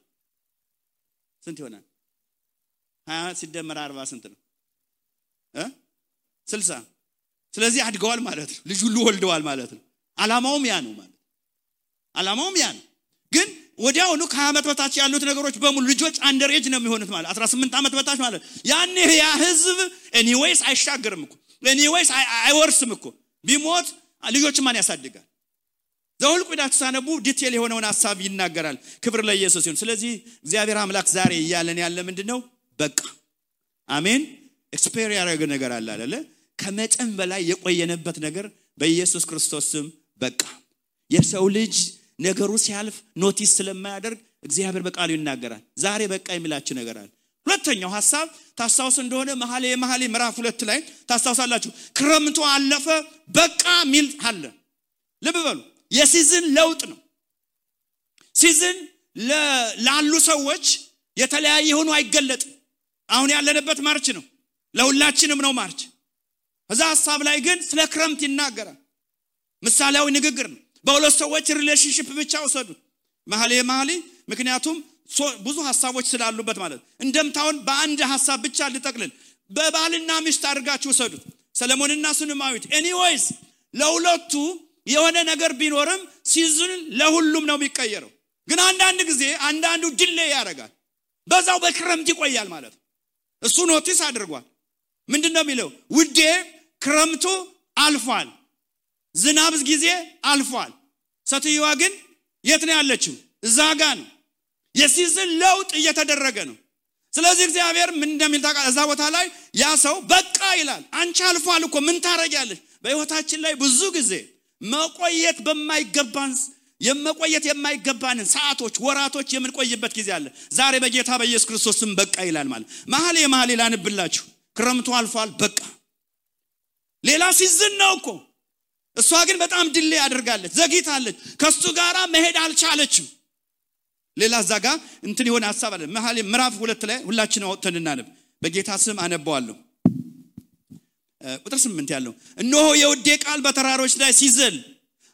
20 ሲደመር 40 ስንት ነው? 60። ስለዚህ አድገዋል ማለት ነው። ልጅ ሁሉ ወልደዋል ማለት ነው። አላማውም ያ ነው ማለት አላማውም ያ ነው። ግን ወዲያውኑ ከ20 ዓመት በታች ያሉት ነገሮች በሙሉ ልጆች አንደር ኤጅ ነው የሚሆኑት ማለት 18 ዓመት በታች ማለት ያኔ ያ ህዝብ ኤኒዌይስ አይሻገርም እኮ ኤኒዌይስ አይወርስም እኮ ቢሞት ልጆች ማን ያሳድጋል? ዘኍልቍ ሄዳችሁ ሳነቡ ዲቴል የሆነውን ሐሳብ ይናገራል። ክብር ለኢየሱስ ይሁን። ስለዚህ እግዚአብሔር አምላክ ዛሬ እያለን ያለ ምንድነው? በቃ አሜን። ኤክስፔሪየንስ ያደረገ ነገር አለ አይደለ? ከመጠን በላይ የቆየነበት ነገር በኢየሱስ ክርስቶስ ስም በቃ። የሰው ልጅ ነገሩ ሲያልፍ ኖቲስ ስለማያደርግ እግዚአብሔር በቃሉ ይናገራል። ዛሬ በቃ የሚላችሁ ነገር አለ። ሁለተኛው ሐሳብ ታስታውሱ እንደሆነ መኃልየ ምዕራፍ 2 ላይ ታስታውሳላችሁ። ክረምቱ አለፈ በቃ ሚል አለ። ልብ በሉ፣ የሲዝን ለውጥ ነው። ሲዝን ላሉ ሰዎች የተለያየ ሆኖ አይገለጥም። አሁን ያለንበት ማርች ነው፣ ለሁላችንም ነው ማርች። እዛ ሐሳብ ላይ ግን ስለ ክረምት ይናገራል። ምሳሌያዊ ንግግር ነው። በሁለት ሰዎች ሪሌሽንሺፕ ብቻ ወሰዱት መኃልየ ምክንያቱም ብዙ ሐሳቦች ስላሉበት ማለት እንደምታውን በአንድ ሐሳብ ብቻ ልጠቅልል። በባልና ሚስት አድርጋችሁ ወሰዱት ሰለሞንና ሱነማዊት። ኤኒዌይስ ለሁለቱ የሆነ ነገር ቢኖርም ሲዝን ለሁሉም ነው የሚቀየረው። ግን አንዳንድ ጊዜ አንዳንዱ ዲሌይ ያደርጋል፣ በዛው በክረምት ይቆያል ማለት ነው። እሱ ኖቲስ አድርጓል። ምንድነው የሚለው? ውዴ ክረምቱ አልፏል፣ ዝናብ ጊዜ አልፏል። ሴትዮዋ ግን የት ነው ያለችው? እዛ ጋር ነው። የሲዝን ለውጥ እየተደረገ ነው። ስለዚህ እግዚአብሔር ምን እንደሚል ታውቃለህ? እዛ ቦታ ላይ ያ ሰው በቃ ይላል። አንቺ አልፏል እኮ ምን ታረጋለሽ? በህይወታችን ላይ ብዙ ጊዜ መቆየት የማይገባንን ሰዓቶች፣ ወራቶች የምንቆይበት ጊዜ አለ። ዛሬ በጌታ በኢየሱስ ክርስቶስ ስም በቃ ይላል ማለት መኃልየ ላንብላችሁ። ክረምቱ አልፏል በቃ። ሌላ ሲዝን ነው እኮ። እሷ ግን በጣም ድሌ አድርጋለች፣ ዘግይታለች፣ ከሱ ጋራ መሄድ አልቻለችም። ሌላ ዛጋ እንትን የሆነ ሐሳብ አለ። መኃልየ ምዕራፍ 2 ላይ ሁላችንም አውጥተን እናነብ። በጌታ ስም አነባዋለሁ። ቁጥር 8 ያለው እነሆ የውዴ ቃል በተራሮች ላይ ሲዘል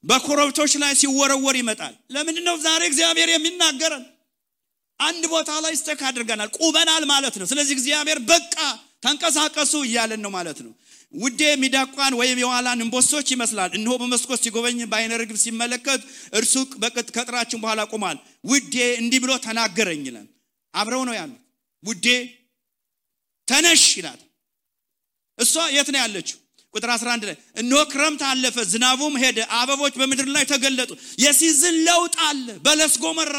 በኮረብቶች ላይ ሲወረወር ይመጣል። ለምንድነው ዛሬ እግዚአብሔር የሚናገረን? አንድ ቦታ ላይ ስተክ አድርገናል፣ ቁበናል ማለት ነው። ስለዚህ እግዚአብሔር በቃ ተንቀሳቀሱ እያለን ነው ማለት ነው። ውዴ ሚዳቋን ወይም የዋላን እንቦሶች ይመስላል። እነሆ በመስኮት ሲጎበኝ በዓይነ ርግብ ሲመለከት እርሱ ከጥራችን በኋላ ቆሟል። ውዴ እንዲህ ብሎ ተናገረኝ ይላል። አብረው ነው ያሉት። ውዴ ተነሽ ይላል። እሷ የት ነው ያለችው? ቁጥር 11 ላይ እነሆ ክረምት አለፈ፣ ዝናቡም ሄደ፣ አበቦች በምድር ላይ ተገለጡ። የሲዝን ለውጥ አለ። በለስ ጎመራ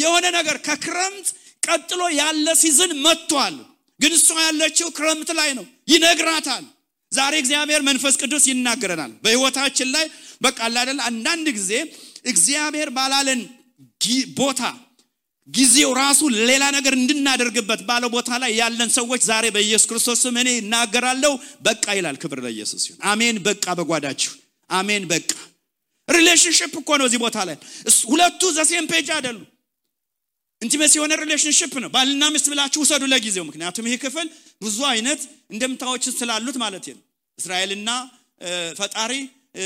የሆነ ነገር ከክረምት ቀጥሎ ያለ ሲዝን መጥቷል። ግን እሷ ያለችው ክረምት ላይ ነው። ይነግራታል። ዛሬ እግዚአብሔር መንፈስ ቅዱስ ይናገረናል በህይወታችን ላይ። በቃ አይደል አንዳንድ ጊዜ እግዚአብሔር ባላለን ቦታ ጊዜው ራሱ ሌላ ነገር እንድናደርግበት ባለው ቦታ ላይ ያለን ሰዎች ዛሬ በኢየሱስ ክርስቶስ ስም እኔ እናገራለሁ በቃ ይላል። ክብር ለኢየሱስ ይሁን። አሜን። በቃ በጓዳችሁ አሜን። በቃ ሪሌሽንሺፕ እኮ ነው እዚህ ቦታ ላይ ሁለቱ ዘሴም ፔጅ አይደሉ። ኢንቲሜሲ የሆነ ሪሌሽንሺፕ ነው። ባልና ሚስት ብላችሁ ወሰዱ ለጊዜው። ምክንያቱም ይሄ ክፍል ብዙ አይነት እንደምታዎች ስላሉት ማለት ነው። እስራኤልና ፈጣሪ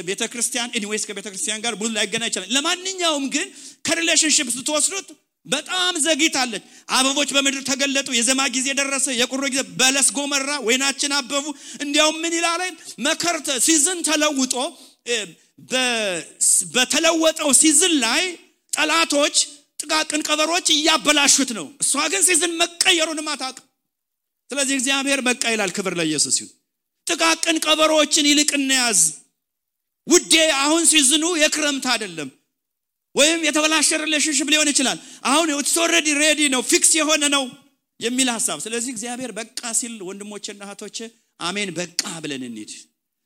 ቤተክርስቲያን ኤኒዌይስ ከቤተክርስቲያን ጋር ብዙ ላይገናኝ ይችላል። ለማንኛውም ግን ከሪሌሽንሺፕ ስትወስዱት በጣም ዘግይታለች። አበቦች በምድር ተገለጡ፣ የዘማ ጊዜ ደረሰ፣ የቁሮ ጊዜ፣ በለስ ጎመራ፣ ወይናችን አበቡ። እንዲያውም ምን ይላል? መከር ሲዝን ተለውጦ በተለወጠው ሲዝን ላይ ጠላቶች ጥቃቅን ቀበሮች እያበላሹት ነው። እሷ ግን ሲዝን መቀየሩንም አታውቅም። ስለዚህ እግዚአብሔር በቃ ይላል። ክብር ለኢየሱስ ይሁን። ጥቃቅን ቀበሮችን ይልቅ እንያዝ ውዴ። አሁን ሲዝኑ የክረምት አይደለም፣ ወይም የተበላሸ ሪሌሽንሺፕ ሊሆን ይችላል። አሁን it's already ready ነው፣ ፊክስ የሆነ ነው የሚል ሐሳብ። ስለዚህ እግዚአብሔር በቃ ሲል ወንድሞቼና እህቶቼ አሜን በቃ ብለን እንሂድ።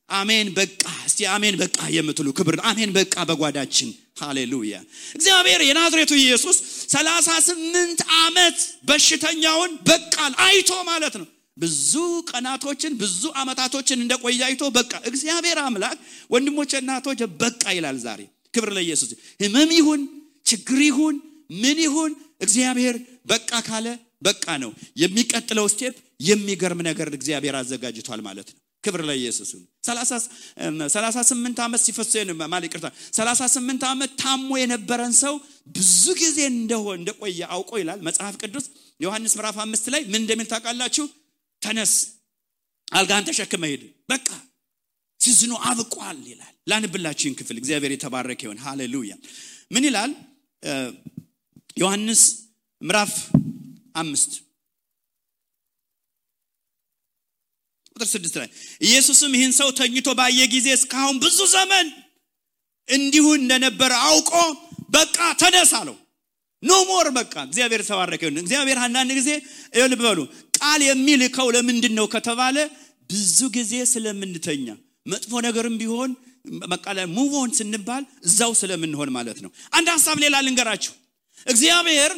አሜን በቃ። እስቲ አሜን በቃ የምትሉ ክብር አሜን በቃ በጓዳችን። ሃሌሉያ። እግዚአብሔር የናዝሬቱ ኢየሱስ 38 ዓመት በሽተኛውን በቃል አይቶ ማለት ነው። ብዙ ቀናቶችን ብዙ አመታቶችን እንደቆየ አይቶ በቃ። እግዚአብሔር አምላክ ወንድሞቼና እህቶቼ በቃ ይላል ዛሬ። ክብር ለኢየሱስ። ህመም ይሁን ችግር ይሁን ምን ይሁን እግዚአብሔር በቃ ካለ በቃ ነው። የሚቀጥለው ስቴፕ የሚገርም ነገር እግዚአብሔር አዘጋጅቷል ማለት ነው። ክብር ለኢየሱስ። 38 ዓመት ሲፈሰን ማለት ይቅርታ 38 ዓመት ታሞ የነበረን ሰው ብዙ ጊዜ እንደቆየ አውቆ ይላል መጽሐፍ ቅዱስ ዮሐንስ ምዕራፍ 5 ላይ ምን እንደሚል ታውቃላችሁ? ተነስ አልጋን ተሸክመ ሂድ በቃ ሲዝኑ አብቋል ይላል። ላንብላችሁን ክፍል እግዚአብሔር የተባረከ ይሁን። ሃሌሉያ። ምን ይላል? ዮሐንስ ምዕራፍ 5 ቁጥር 6 ላይ ኢየሱስም ይህን ሰው ተኝቶ ባየ ጊዜ እስካሁን ብዙ ዘመን እንዲሁ እንደነበረ አውቆ በቃ ተነሳ አለው። ኖ ሞር በቃ። እግዚአብሔር ተባረከ ይሁን። እግዚአብሔር አንዳንድ ጊዜ ልብ በሉ ቃል የሚልከው ለምንድን ነው ከተባለ ብዙ ጊዜ ስለምንተኛ መጥፎ ነገርም ቢሆን መቃለ ሙቭ ኦን ስንባል እዛው ስለምንሆን ማለት ነው። አንድ ሐሳብ ሌላ ልንገራችሁ። እግዚአብሔር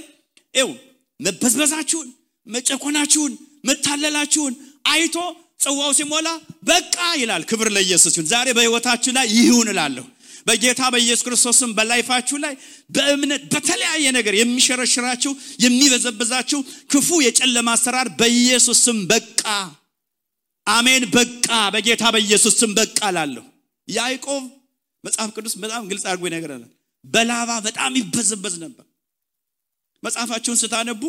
መበዝበዛችሁን መጨቆናችሁን መታለላችሁን አይቶ ጽዋው ሲሞላ በቃ ይላል። ክብር ለኢየሱስ ይሁን። ዛሬ በህይወታችሁ ላይ ይሁን እላለሁ። በጌታ በኢየሱስ ክርስቶስም በላይፋችሁ ላይ በእምነት በተለያየ ነገር የሚሸረሽራችሁ የሚበዘብዛችሁ ክፉ የጨለማ አሰራር በኢየሱስ ስም በቃ። አሜን በቃ። በጌታ በኢየሱስ ስም በቃ እላለሁ። ያዕቆብ መጽሐፍ ቅዱስ በጣም ግልጽ አድርጎ ይነግራል። በላባ በጣም ይበዘበዝ ነበር። መጽሐፋችሁን ስታነቡ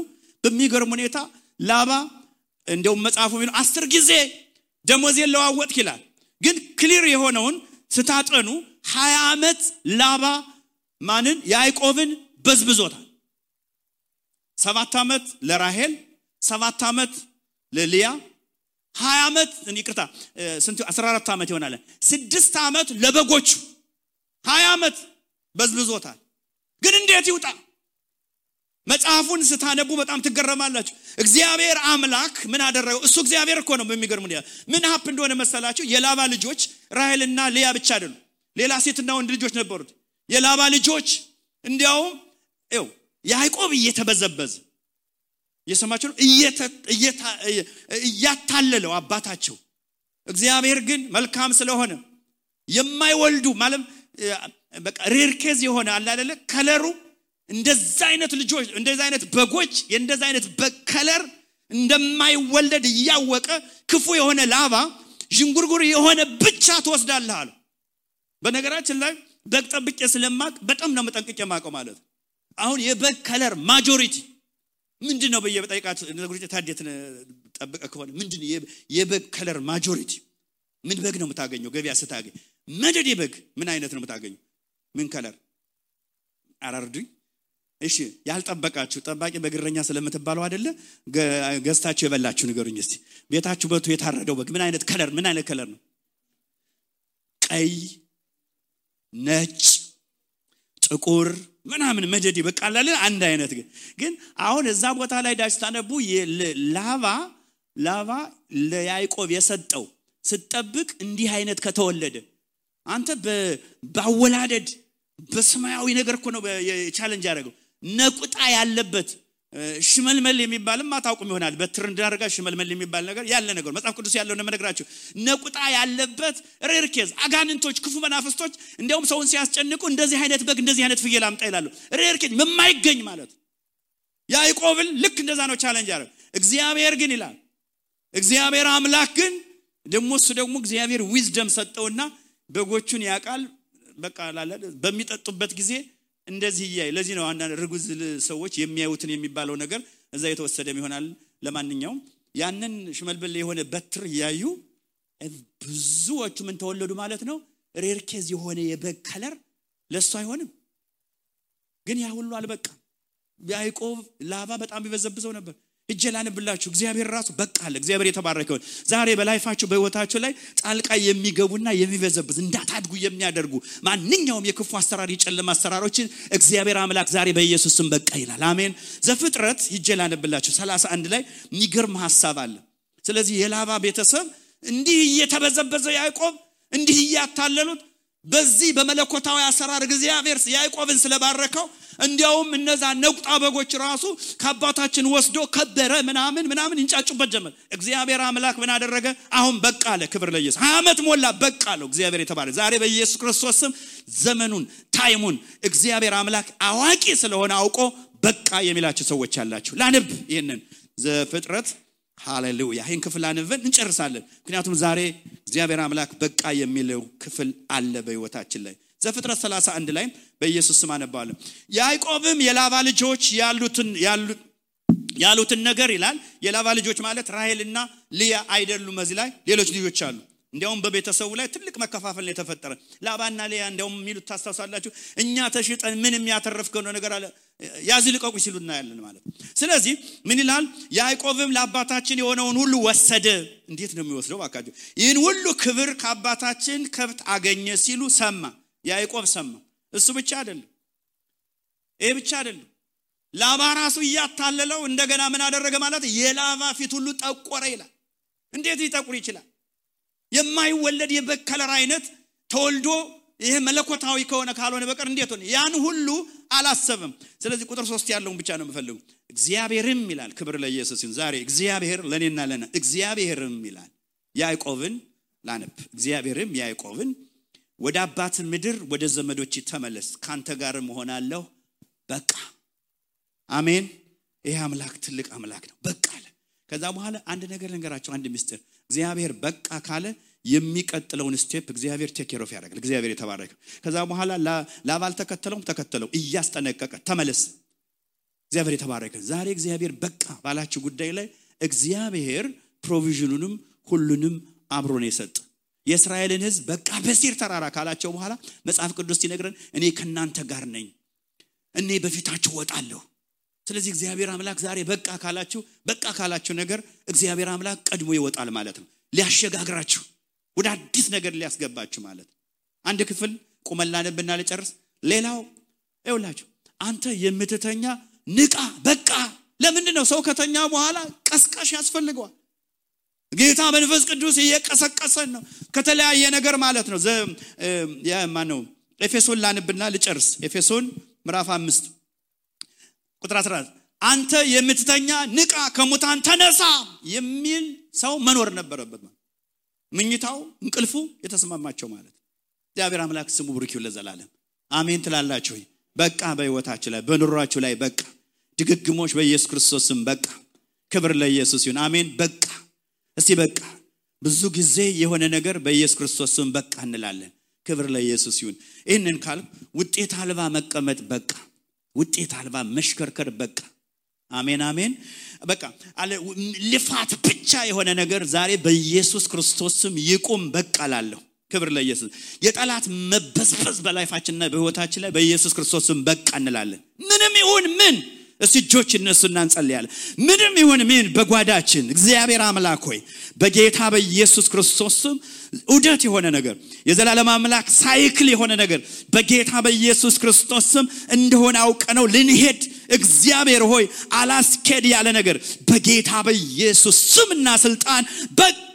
በሚገርም ሁኔታ ላባ እንደውም መጽሐፉ የሚለው 10 ጊዜ ደሞዝ የለዋወጥ ይላል። ግን ክሊር የሆነውን ስታጠኑ 20 ዓመት ላባ ማንን ያዕቆብን በዝብዞታል። 7 ዓመት ለራሔል፣ 7 ዓመት ለሊያ፣ 20 ዓመት ይቅርታ ስንት 14 ዓመት ይሆናል። 6 ዓመት ለበጎቹ 20 ዓመት በዝብዞታል። ግን እንዴት ይውጣ? መጽሐፉን ስታነቡ በጣም ትገረማላችሁ። እግዚአብሔር አምላክ ምን አደረገው? እሱ እግዚአብሔር እኮ ነው። በሚገርም ሁኔታ ምን ሀፕ እንደሆነ መሰላችሁ? የላባ ልጆች ራሔልና ሊያ ብቻ አይደሉም፣ ሌላ ሴትና ወንድ ልጆች ነበሩት። የላባ ልጆች እንዲያውም ያዕቆብ እየተበዘበዘ እየሰማችሁ ነው እያታለለው አባታቸው። እግዚአብሔር ግን መልካም ስለሆነ የማይወልዱ ማለት በቃ ሬር ኬዝ የሆነ አለ አይደለ ከለሩ እንደዛ አይነት ልጆች እንደዛ አይነት በጎች እንደዛ አይነት በከለር እንደማይወለድ ያወቀ ክፉ የሆነ ላባ ጅንጉርጉር የሆነ ብቻ ተወስዳለህ አለ። በነገራችን ላይ በግ ጠብቄ ስለማቅ በጣም ነው መጠንቀቅ የማቀው ማለት። አሁን የበግ ከለር ማጆሪቲ ምንድነው በየበጠይቃችሁ ነገሮች ታዲያት ጠብቀ ከሆነ ምንድነው የበግ ከለር ማጆሪቲ ምን በግ ነው የምታገኘው? ገበያ ስታገኝ መደድ የበግ ምን አይነት ነው የምታገኘው? ምን ከለር አራርዱኝ። እሺ ያልጠበቃችሁ ጠባቂ በግረኛ ስለምትባለው አይደለ ገዝታችሁ የበላችሁ ንገሩኝ እስቲ። ቤታችሁ በቱ የታረደው በግ ምን አይነት ከለር ነው? ቀይ፣ ነጭ፣ ጥቁር ምናምን መደዲ በቃላለ አንድ አይነት ግን አሁን እዛ ቦታ ላይ ዳስታነቡ ላባ ለያዕቆብ የሰጠው ስትጠብቅ እንዲህ አይነት ከተወለደ አንተ በአወላደድ በሰማያዊ ነገር እኮ ነው ቻሌንጅ ያደረገው። ነቁጣ ያለበት ሽመልመል የሚባልም አታውቁም ይሆናል። በትርንድ አድርጋ ሽመልመል የሚባል ነገር ያለ ነገር መጽሐፍ ቅዱስ ያለው ነው መነግራችሁ። ነቁጣ ያለበት ሬር ኬዝ አጋንንቶች ክፉ መናፍስቶች እንደውም ሰውን ሲያስጨንቁ እንደዚህ አይነት በግ እንደዚህ አይነት ፍየል አምጣ ይላሉ። ሬር ኬዝ የማይገኝ ማለት ያዕቆብን ልክ እንደዛ ነው ቻሌንጅ ያደረገው። እግዚአብሔር ግን ይላል እግዚአብሔር አምላክ ግን ደግሞ እግዚአብሔር ዊዝደም ሰጠውና በጎቹን ያቃል በቃ ላለ በሚጠጡበት ጊዜ እንደዚህ ይያይ ለዚህ ነው አንዳንድ ርጉዝ ሰዎች የሚያዩትን የሚባለው ነገር እዛ የተወሰደም ይሆናል ለማንኛውም ያንን ሽመልበል የሆነ በትር ያዩ ብዙዎቹ ምን ተወለዱ ማለት ነው ሬርኬዝ የሆነ የበግ ከለር ለሱ አይሆንም ግን ያ ሁሉ አልበቃም ያዕቆብ ላባ በጣም ይበዘብዘው ነበር እጀላንብላችሁ እግዚአብሔር ራሱ በቃ አለ እግዚአብሔር የተባረከው ዛሬ በላይፋችሁ በህይወታችሁ ላይ ጣልቃ የሚገቡና የሚበዘብዝ እንዳታድጉ የሚያደርጉ ማንኛውም የክፉ አሰራር የጨለማ አሰራሮችን እግዚአብሔር አምላክ ዛሬ በኢየሱስ ስም በቃ ይላል አሜን ዘፍጥረት ይጀላንብላችሁ 31 ላይ የሚገርም ሐሳብ አለ ስለዚህ የላባ ቤተሰብ እንዲህ እየተበዘበዘ ያዕቆብ እንዲህ ያታለሉት በዚህ በመለኮታዊ አሰራር እግዚአብሔር ያዕቆብን ስለባረከው እንዲያውም እነዛ ነቁጣ በጎች ራሱ ከአባታችን ወስዶ ከበረ ምናምን እንጫጩበት ጀመር እግዚአብሔር አምላክ ምን አደረገ አሁን በቃ አለ ክብር ለኢየሱስ 20 ዓመት ሞላ በቃ አለው እግዚአብሔር የተባረከ ዛሬ በኢየሱስ ክርስቶስ ስም ዘመኑን ታይሙን እግዚአብሔር አምላክ አዋቂ ስለሆነ አውቆ በቃ የሚላችሁ ሰዎች አላችሁ ላንብ ይሄንን ዘፍጥረት ሃሌሉያ ይሄን ክፍል አንብበን እንጨርሳለን ምክንያቱም ዛሬ እግዚአብሔር አምላክ በቃ የሚለው ክፍል አለ በህይወታችን ላይ ዘፍጥረት 31 ላይ በኢየሱስ ስም አነባለሁ ያዕቆብም የላባ ልጆች ያሉትን ነገር ይላል የላባ ልጆች ማለት ራሔልና ሊያ አይደሉም እዚህ ላይ ሌሎች ልጆች አሉ እንዲያውም በቤተሰቡ ላይ ትልቅ መከፋፈል ነው የተፈጠረ ላባና ሊያ እንዲያውም የሚሉት ታስተውሳላችሁ እኛ ተሽጠን ምንም ያተረፍከው ነገር አለ ያዝልቀቁ ሲሉና ያለን ማለት ስለዚህ ምን ይላል ያዕቆብም ለአባታችን የሆነውን ሁሉ ወሰደ እንዴት ነው የሚወስደው ባካችሁ ይህን ሁሉ ክብር ከአባታችን ከብት አገኘ ሲሉ ሰማ ያዕቆብ ሰማ እሱ ብቻ አይደለም ይሄ ብቻ አይደለም ላባ ራሱ ያታለለው እንደገና ምን አደረገ ማለት የላባ ፊት ሁሉ ጠቆረ ይላል እንዴት ሊጠቁር ይችላል የማይወለድ የበከለር አይነት ተወልዶ ይሄ መለኮታዊ ከሆነ ካልሆነ በቀር እንዴት ሆነ ያን ሁሉ አላሰበም ስለዚህ ቁጥር 3 ያለውን ብቻ ነው የምፈልገው እግዚአብሔርም ይላል ክብር ለኢየሱስ ይሁን ዛሬ እግዚአብሔር ለኔና ለና እግዚአብሔርም ይላል ያዕቆብን ላነብ እግዚአብሔርም ያዕቆብን ወደ አባት ምድር ወደ ዘመዶች ተመለስ ካንተ ጋር መሆናለሁ በቃ አሜን ይሄ አምላክ ትልቅ አምላክ ነው በቃ አለ ከዛ በኋላ አንድ ነገር ልንገራችሁ አንድ ምስጢር እግዚአብሔር በቃ ካለ የሚቀጥለውን ስቴፕ እግዚአብሔር ቴክ ኬር ኦፍ ያደርጋል እግዚአብሔር የተባረከ ከዛ በኋላ ላባል ተከተለው እያስጠነቀቀ ተመለስ እግዚአብሔር የተባረከ ዛሬ እግዚአብሔር በቃ ባላችሁ ጉዳይ ላይ እግዚአብሔር ፕሮቪዥኑንም ሁሉንም አብሮ ነው የሰጠ የእስራኤልን ሕዝብ በቃ በሲር ተራራ ካላቸው በኋላ መጽሐፍ ቅዱስ ሲነግረን እኔ ከናንተ ጋር ነኝ እኔ በፊታችሁ ወጣለሁ ስለዚህ እግዚአብሔር አምላክ ዛሬ በቃ ካላችሁ ነገር እግዚአብሔር አምላክ ቀድሞ ይወጣል ማለት ነው ሊያሸጋግራችሁ ወደ አዲስ ነገር ሊያስገባችሁ ማለት አንድ ክፍል ቆመላንብና ለጨርስ ሌላው ይውላችሁ አንተ የምትተኛ ንቃ በቃ ለምንድን ነው ሰው ከተኛ በኋላ ቀስቃሽ ያስፈልገዋል ጌታ መንፈስ ቅዱስ እየቀሰቀሰን ነው ከተለያየ ነገር ማለት ነው ማነው ኤፌሶን ላንብና ልጨርስ ኤፌሶን ምዕራፍ 5 ቁጥር 14 አንተ የምትተኛ ንቃ ከሙታን ተነሳ የሚል ሰው መኖር ነበረበት ምኝታው እንቅልፉ የተስማማቸው ማለት እግዚአብሔር አምላክ ስሙ ብሩክ ይሁን ለዘላለም አሜን ትላላችሁ በቃ በህይወታችሁ ላይ በኑሯችሁ ላይ በቃ ድግግሞች በኢየሱስ ክርስቶስ ስም በቃ ክብር ለኢየሱስ ይሁን አሜን በቃ እስቲ በቃ ብዙ ጊዜ የሆነ ነገር በኢየሱስ ክርስቶስ ስም በቃ እንላለን ክብር ለኢየሱስ ይሁን ይሄንን ካል ውጤት አልባ መቀመጥ በቃ ውጤት አልባ መሽከርከር በቃ አሜን አሜን በቃ አለ ልፋት ብቻ የሆነ ነገር ዛሬ በኢየሱስ ክርስቶስ ስም ይቁም በቃ ላለው ክብር ለኢየሱስ የጠላት መበዝበዝ በላይፋችንና በህይወታችን ላይ በኢየሱስ ክርስቶስ ስም በቃ እንላለን ምንም ይሁን ምን እስጆች እነሱና እንጸልያለን ምንም ይሁን ምን በጓዳችን እግዚአብሔር አምላክ ሆይ በጌታ በኢየሱስ ክርስቶስ ስም ኡደት የሆነ ነገር የዘላለም አምላክ ሳይክል የሆነ ነገር በጌታ በኢየሱስ ክርስቶስ ስም እንደሆነ አውቀነው ልንሄድ እግዚአብሔር ሆይ አላስከድ ያለ ነገር በጌታ በኢየሱስ ስምና ስልጣን በቃ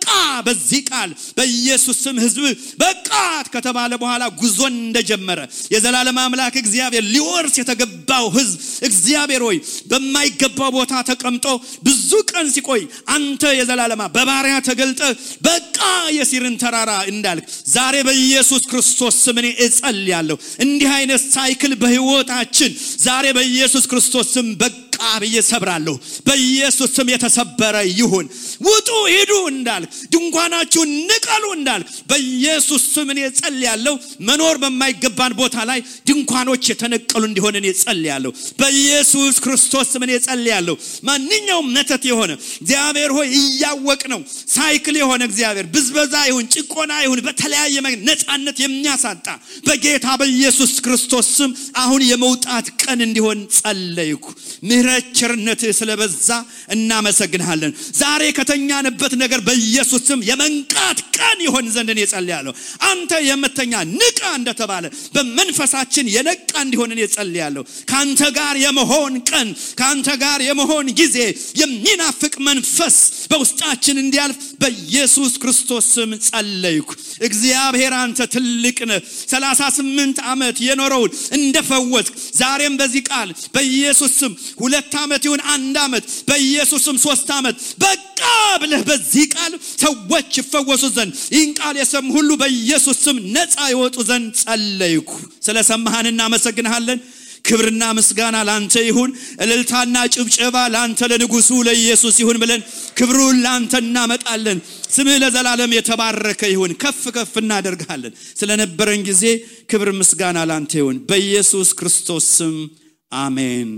በዚህ ቃል በኢየሱስ ስም ህዝብ በቃ ከተባለ በኋላ ጉዞን እንደጀመረ የዘላለም አምላክ እግዚአብሔር ሊወርስ የተገባው ህዝብ እግዚአብሔር ሆይ በማይገባው ቦታ ተቀምጦ ብዙ ቀን ሲቆይ አንተ የዘላለም በባሪያ ተገልጠ በቃ የሲርን ተራራ እንዳልክ ዛሬ በኢየሱስ ክርስቶስ ስም እኔ እጸልያለሁ እንዲህ አይነት ሳይክል በህይወታችን ዛሬ በኢየሱስ ክርስቶስ ስም በቃ ብዬ ሰብራለሁ በኢየሱስ ስም የተሰበረ ይሁን ውጡ ሂዱ እንዳል ድንኳናችሁን ንቀሉ እንዳል በኢየሱስ ስም እኔ ጸልያለሁ መኖር በማይገባን ቦታ ላይ ድንኳኖች የተነቀሉ እንዲሆን እኔ ጸልያለሁ በኢየሱስ ክርስቶስ ስም እኔ ጸልያለሁ ማንኛውም መተት የሆነ እግዚአብሔር ሆይ እያወቅ ነው ሳይክል የሆነ እግዚአብሔር ብዝበዛ ይሁን ጭቆና ይሁን በተለያየ ነፃነት የሚያሳጣ በጌታ በኢየሱስ ክርስቶስ ስም አሁን የመውጣት ቀን እንዲሆን ጸልይኩ ምህረት ቸርነት ስለበዛ እናመሰግንሃለን ዛሬ ከተኛንበት ነገር በኢየሱስ ስም የመንቃት ቀን ይሆን ዘንድ እኔ ጸልያለሁ አንተ የምተኛ ንቃ እንደተባለ በመንፈሳችን የነቃ እንዲሆን እኔ ጸልያለሁ ካንተ ጋር የመሆን ቀን ካንተ ጋር የመሆን ጊዜ የሚናፍቅ መንፈስ በውስጣችን እንዲያልፍ በኢየሱስ ክርስቶስ ስም ጸልይኩ እግዚአብሔር አንተ ትልቅ ነህ 38 ዓመት የኖረውን እንደፈወስክ ዛሬም በዚህ ቃል በኢየሱስ ስም 2 ዓመት ይሁን 1 ዓመት በኢየሱስ ስም 3 ዓመት በቃ ብለህ በዚህ ቃል ሰዎች ይፈወሱ ዘንድ ይህን ቃል የሰሙ ሁሉ በኢየሱስ ስም ነፃ ይወጡ ዘንድ ጸልይኩ ስለሰማህን እናመሰግንሃለን ክብርና ምስጋና ላንተ ይሁን እልልታና ጭብጨባ ላንተ ለንጉሱ ለኢየሱስ ይሁን ብለን ክብሩን ላንተ እናመጣለን ስምህ ለዘላለም የተባረከ ይሁን ከፍ ከፍ እናደርጋለን ስለነበረን ጊዜ ክብር ምስጋና ላንተ ይሁን በኢየሱስ ክርስቶስ ስም አሜን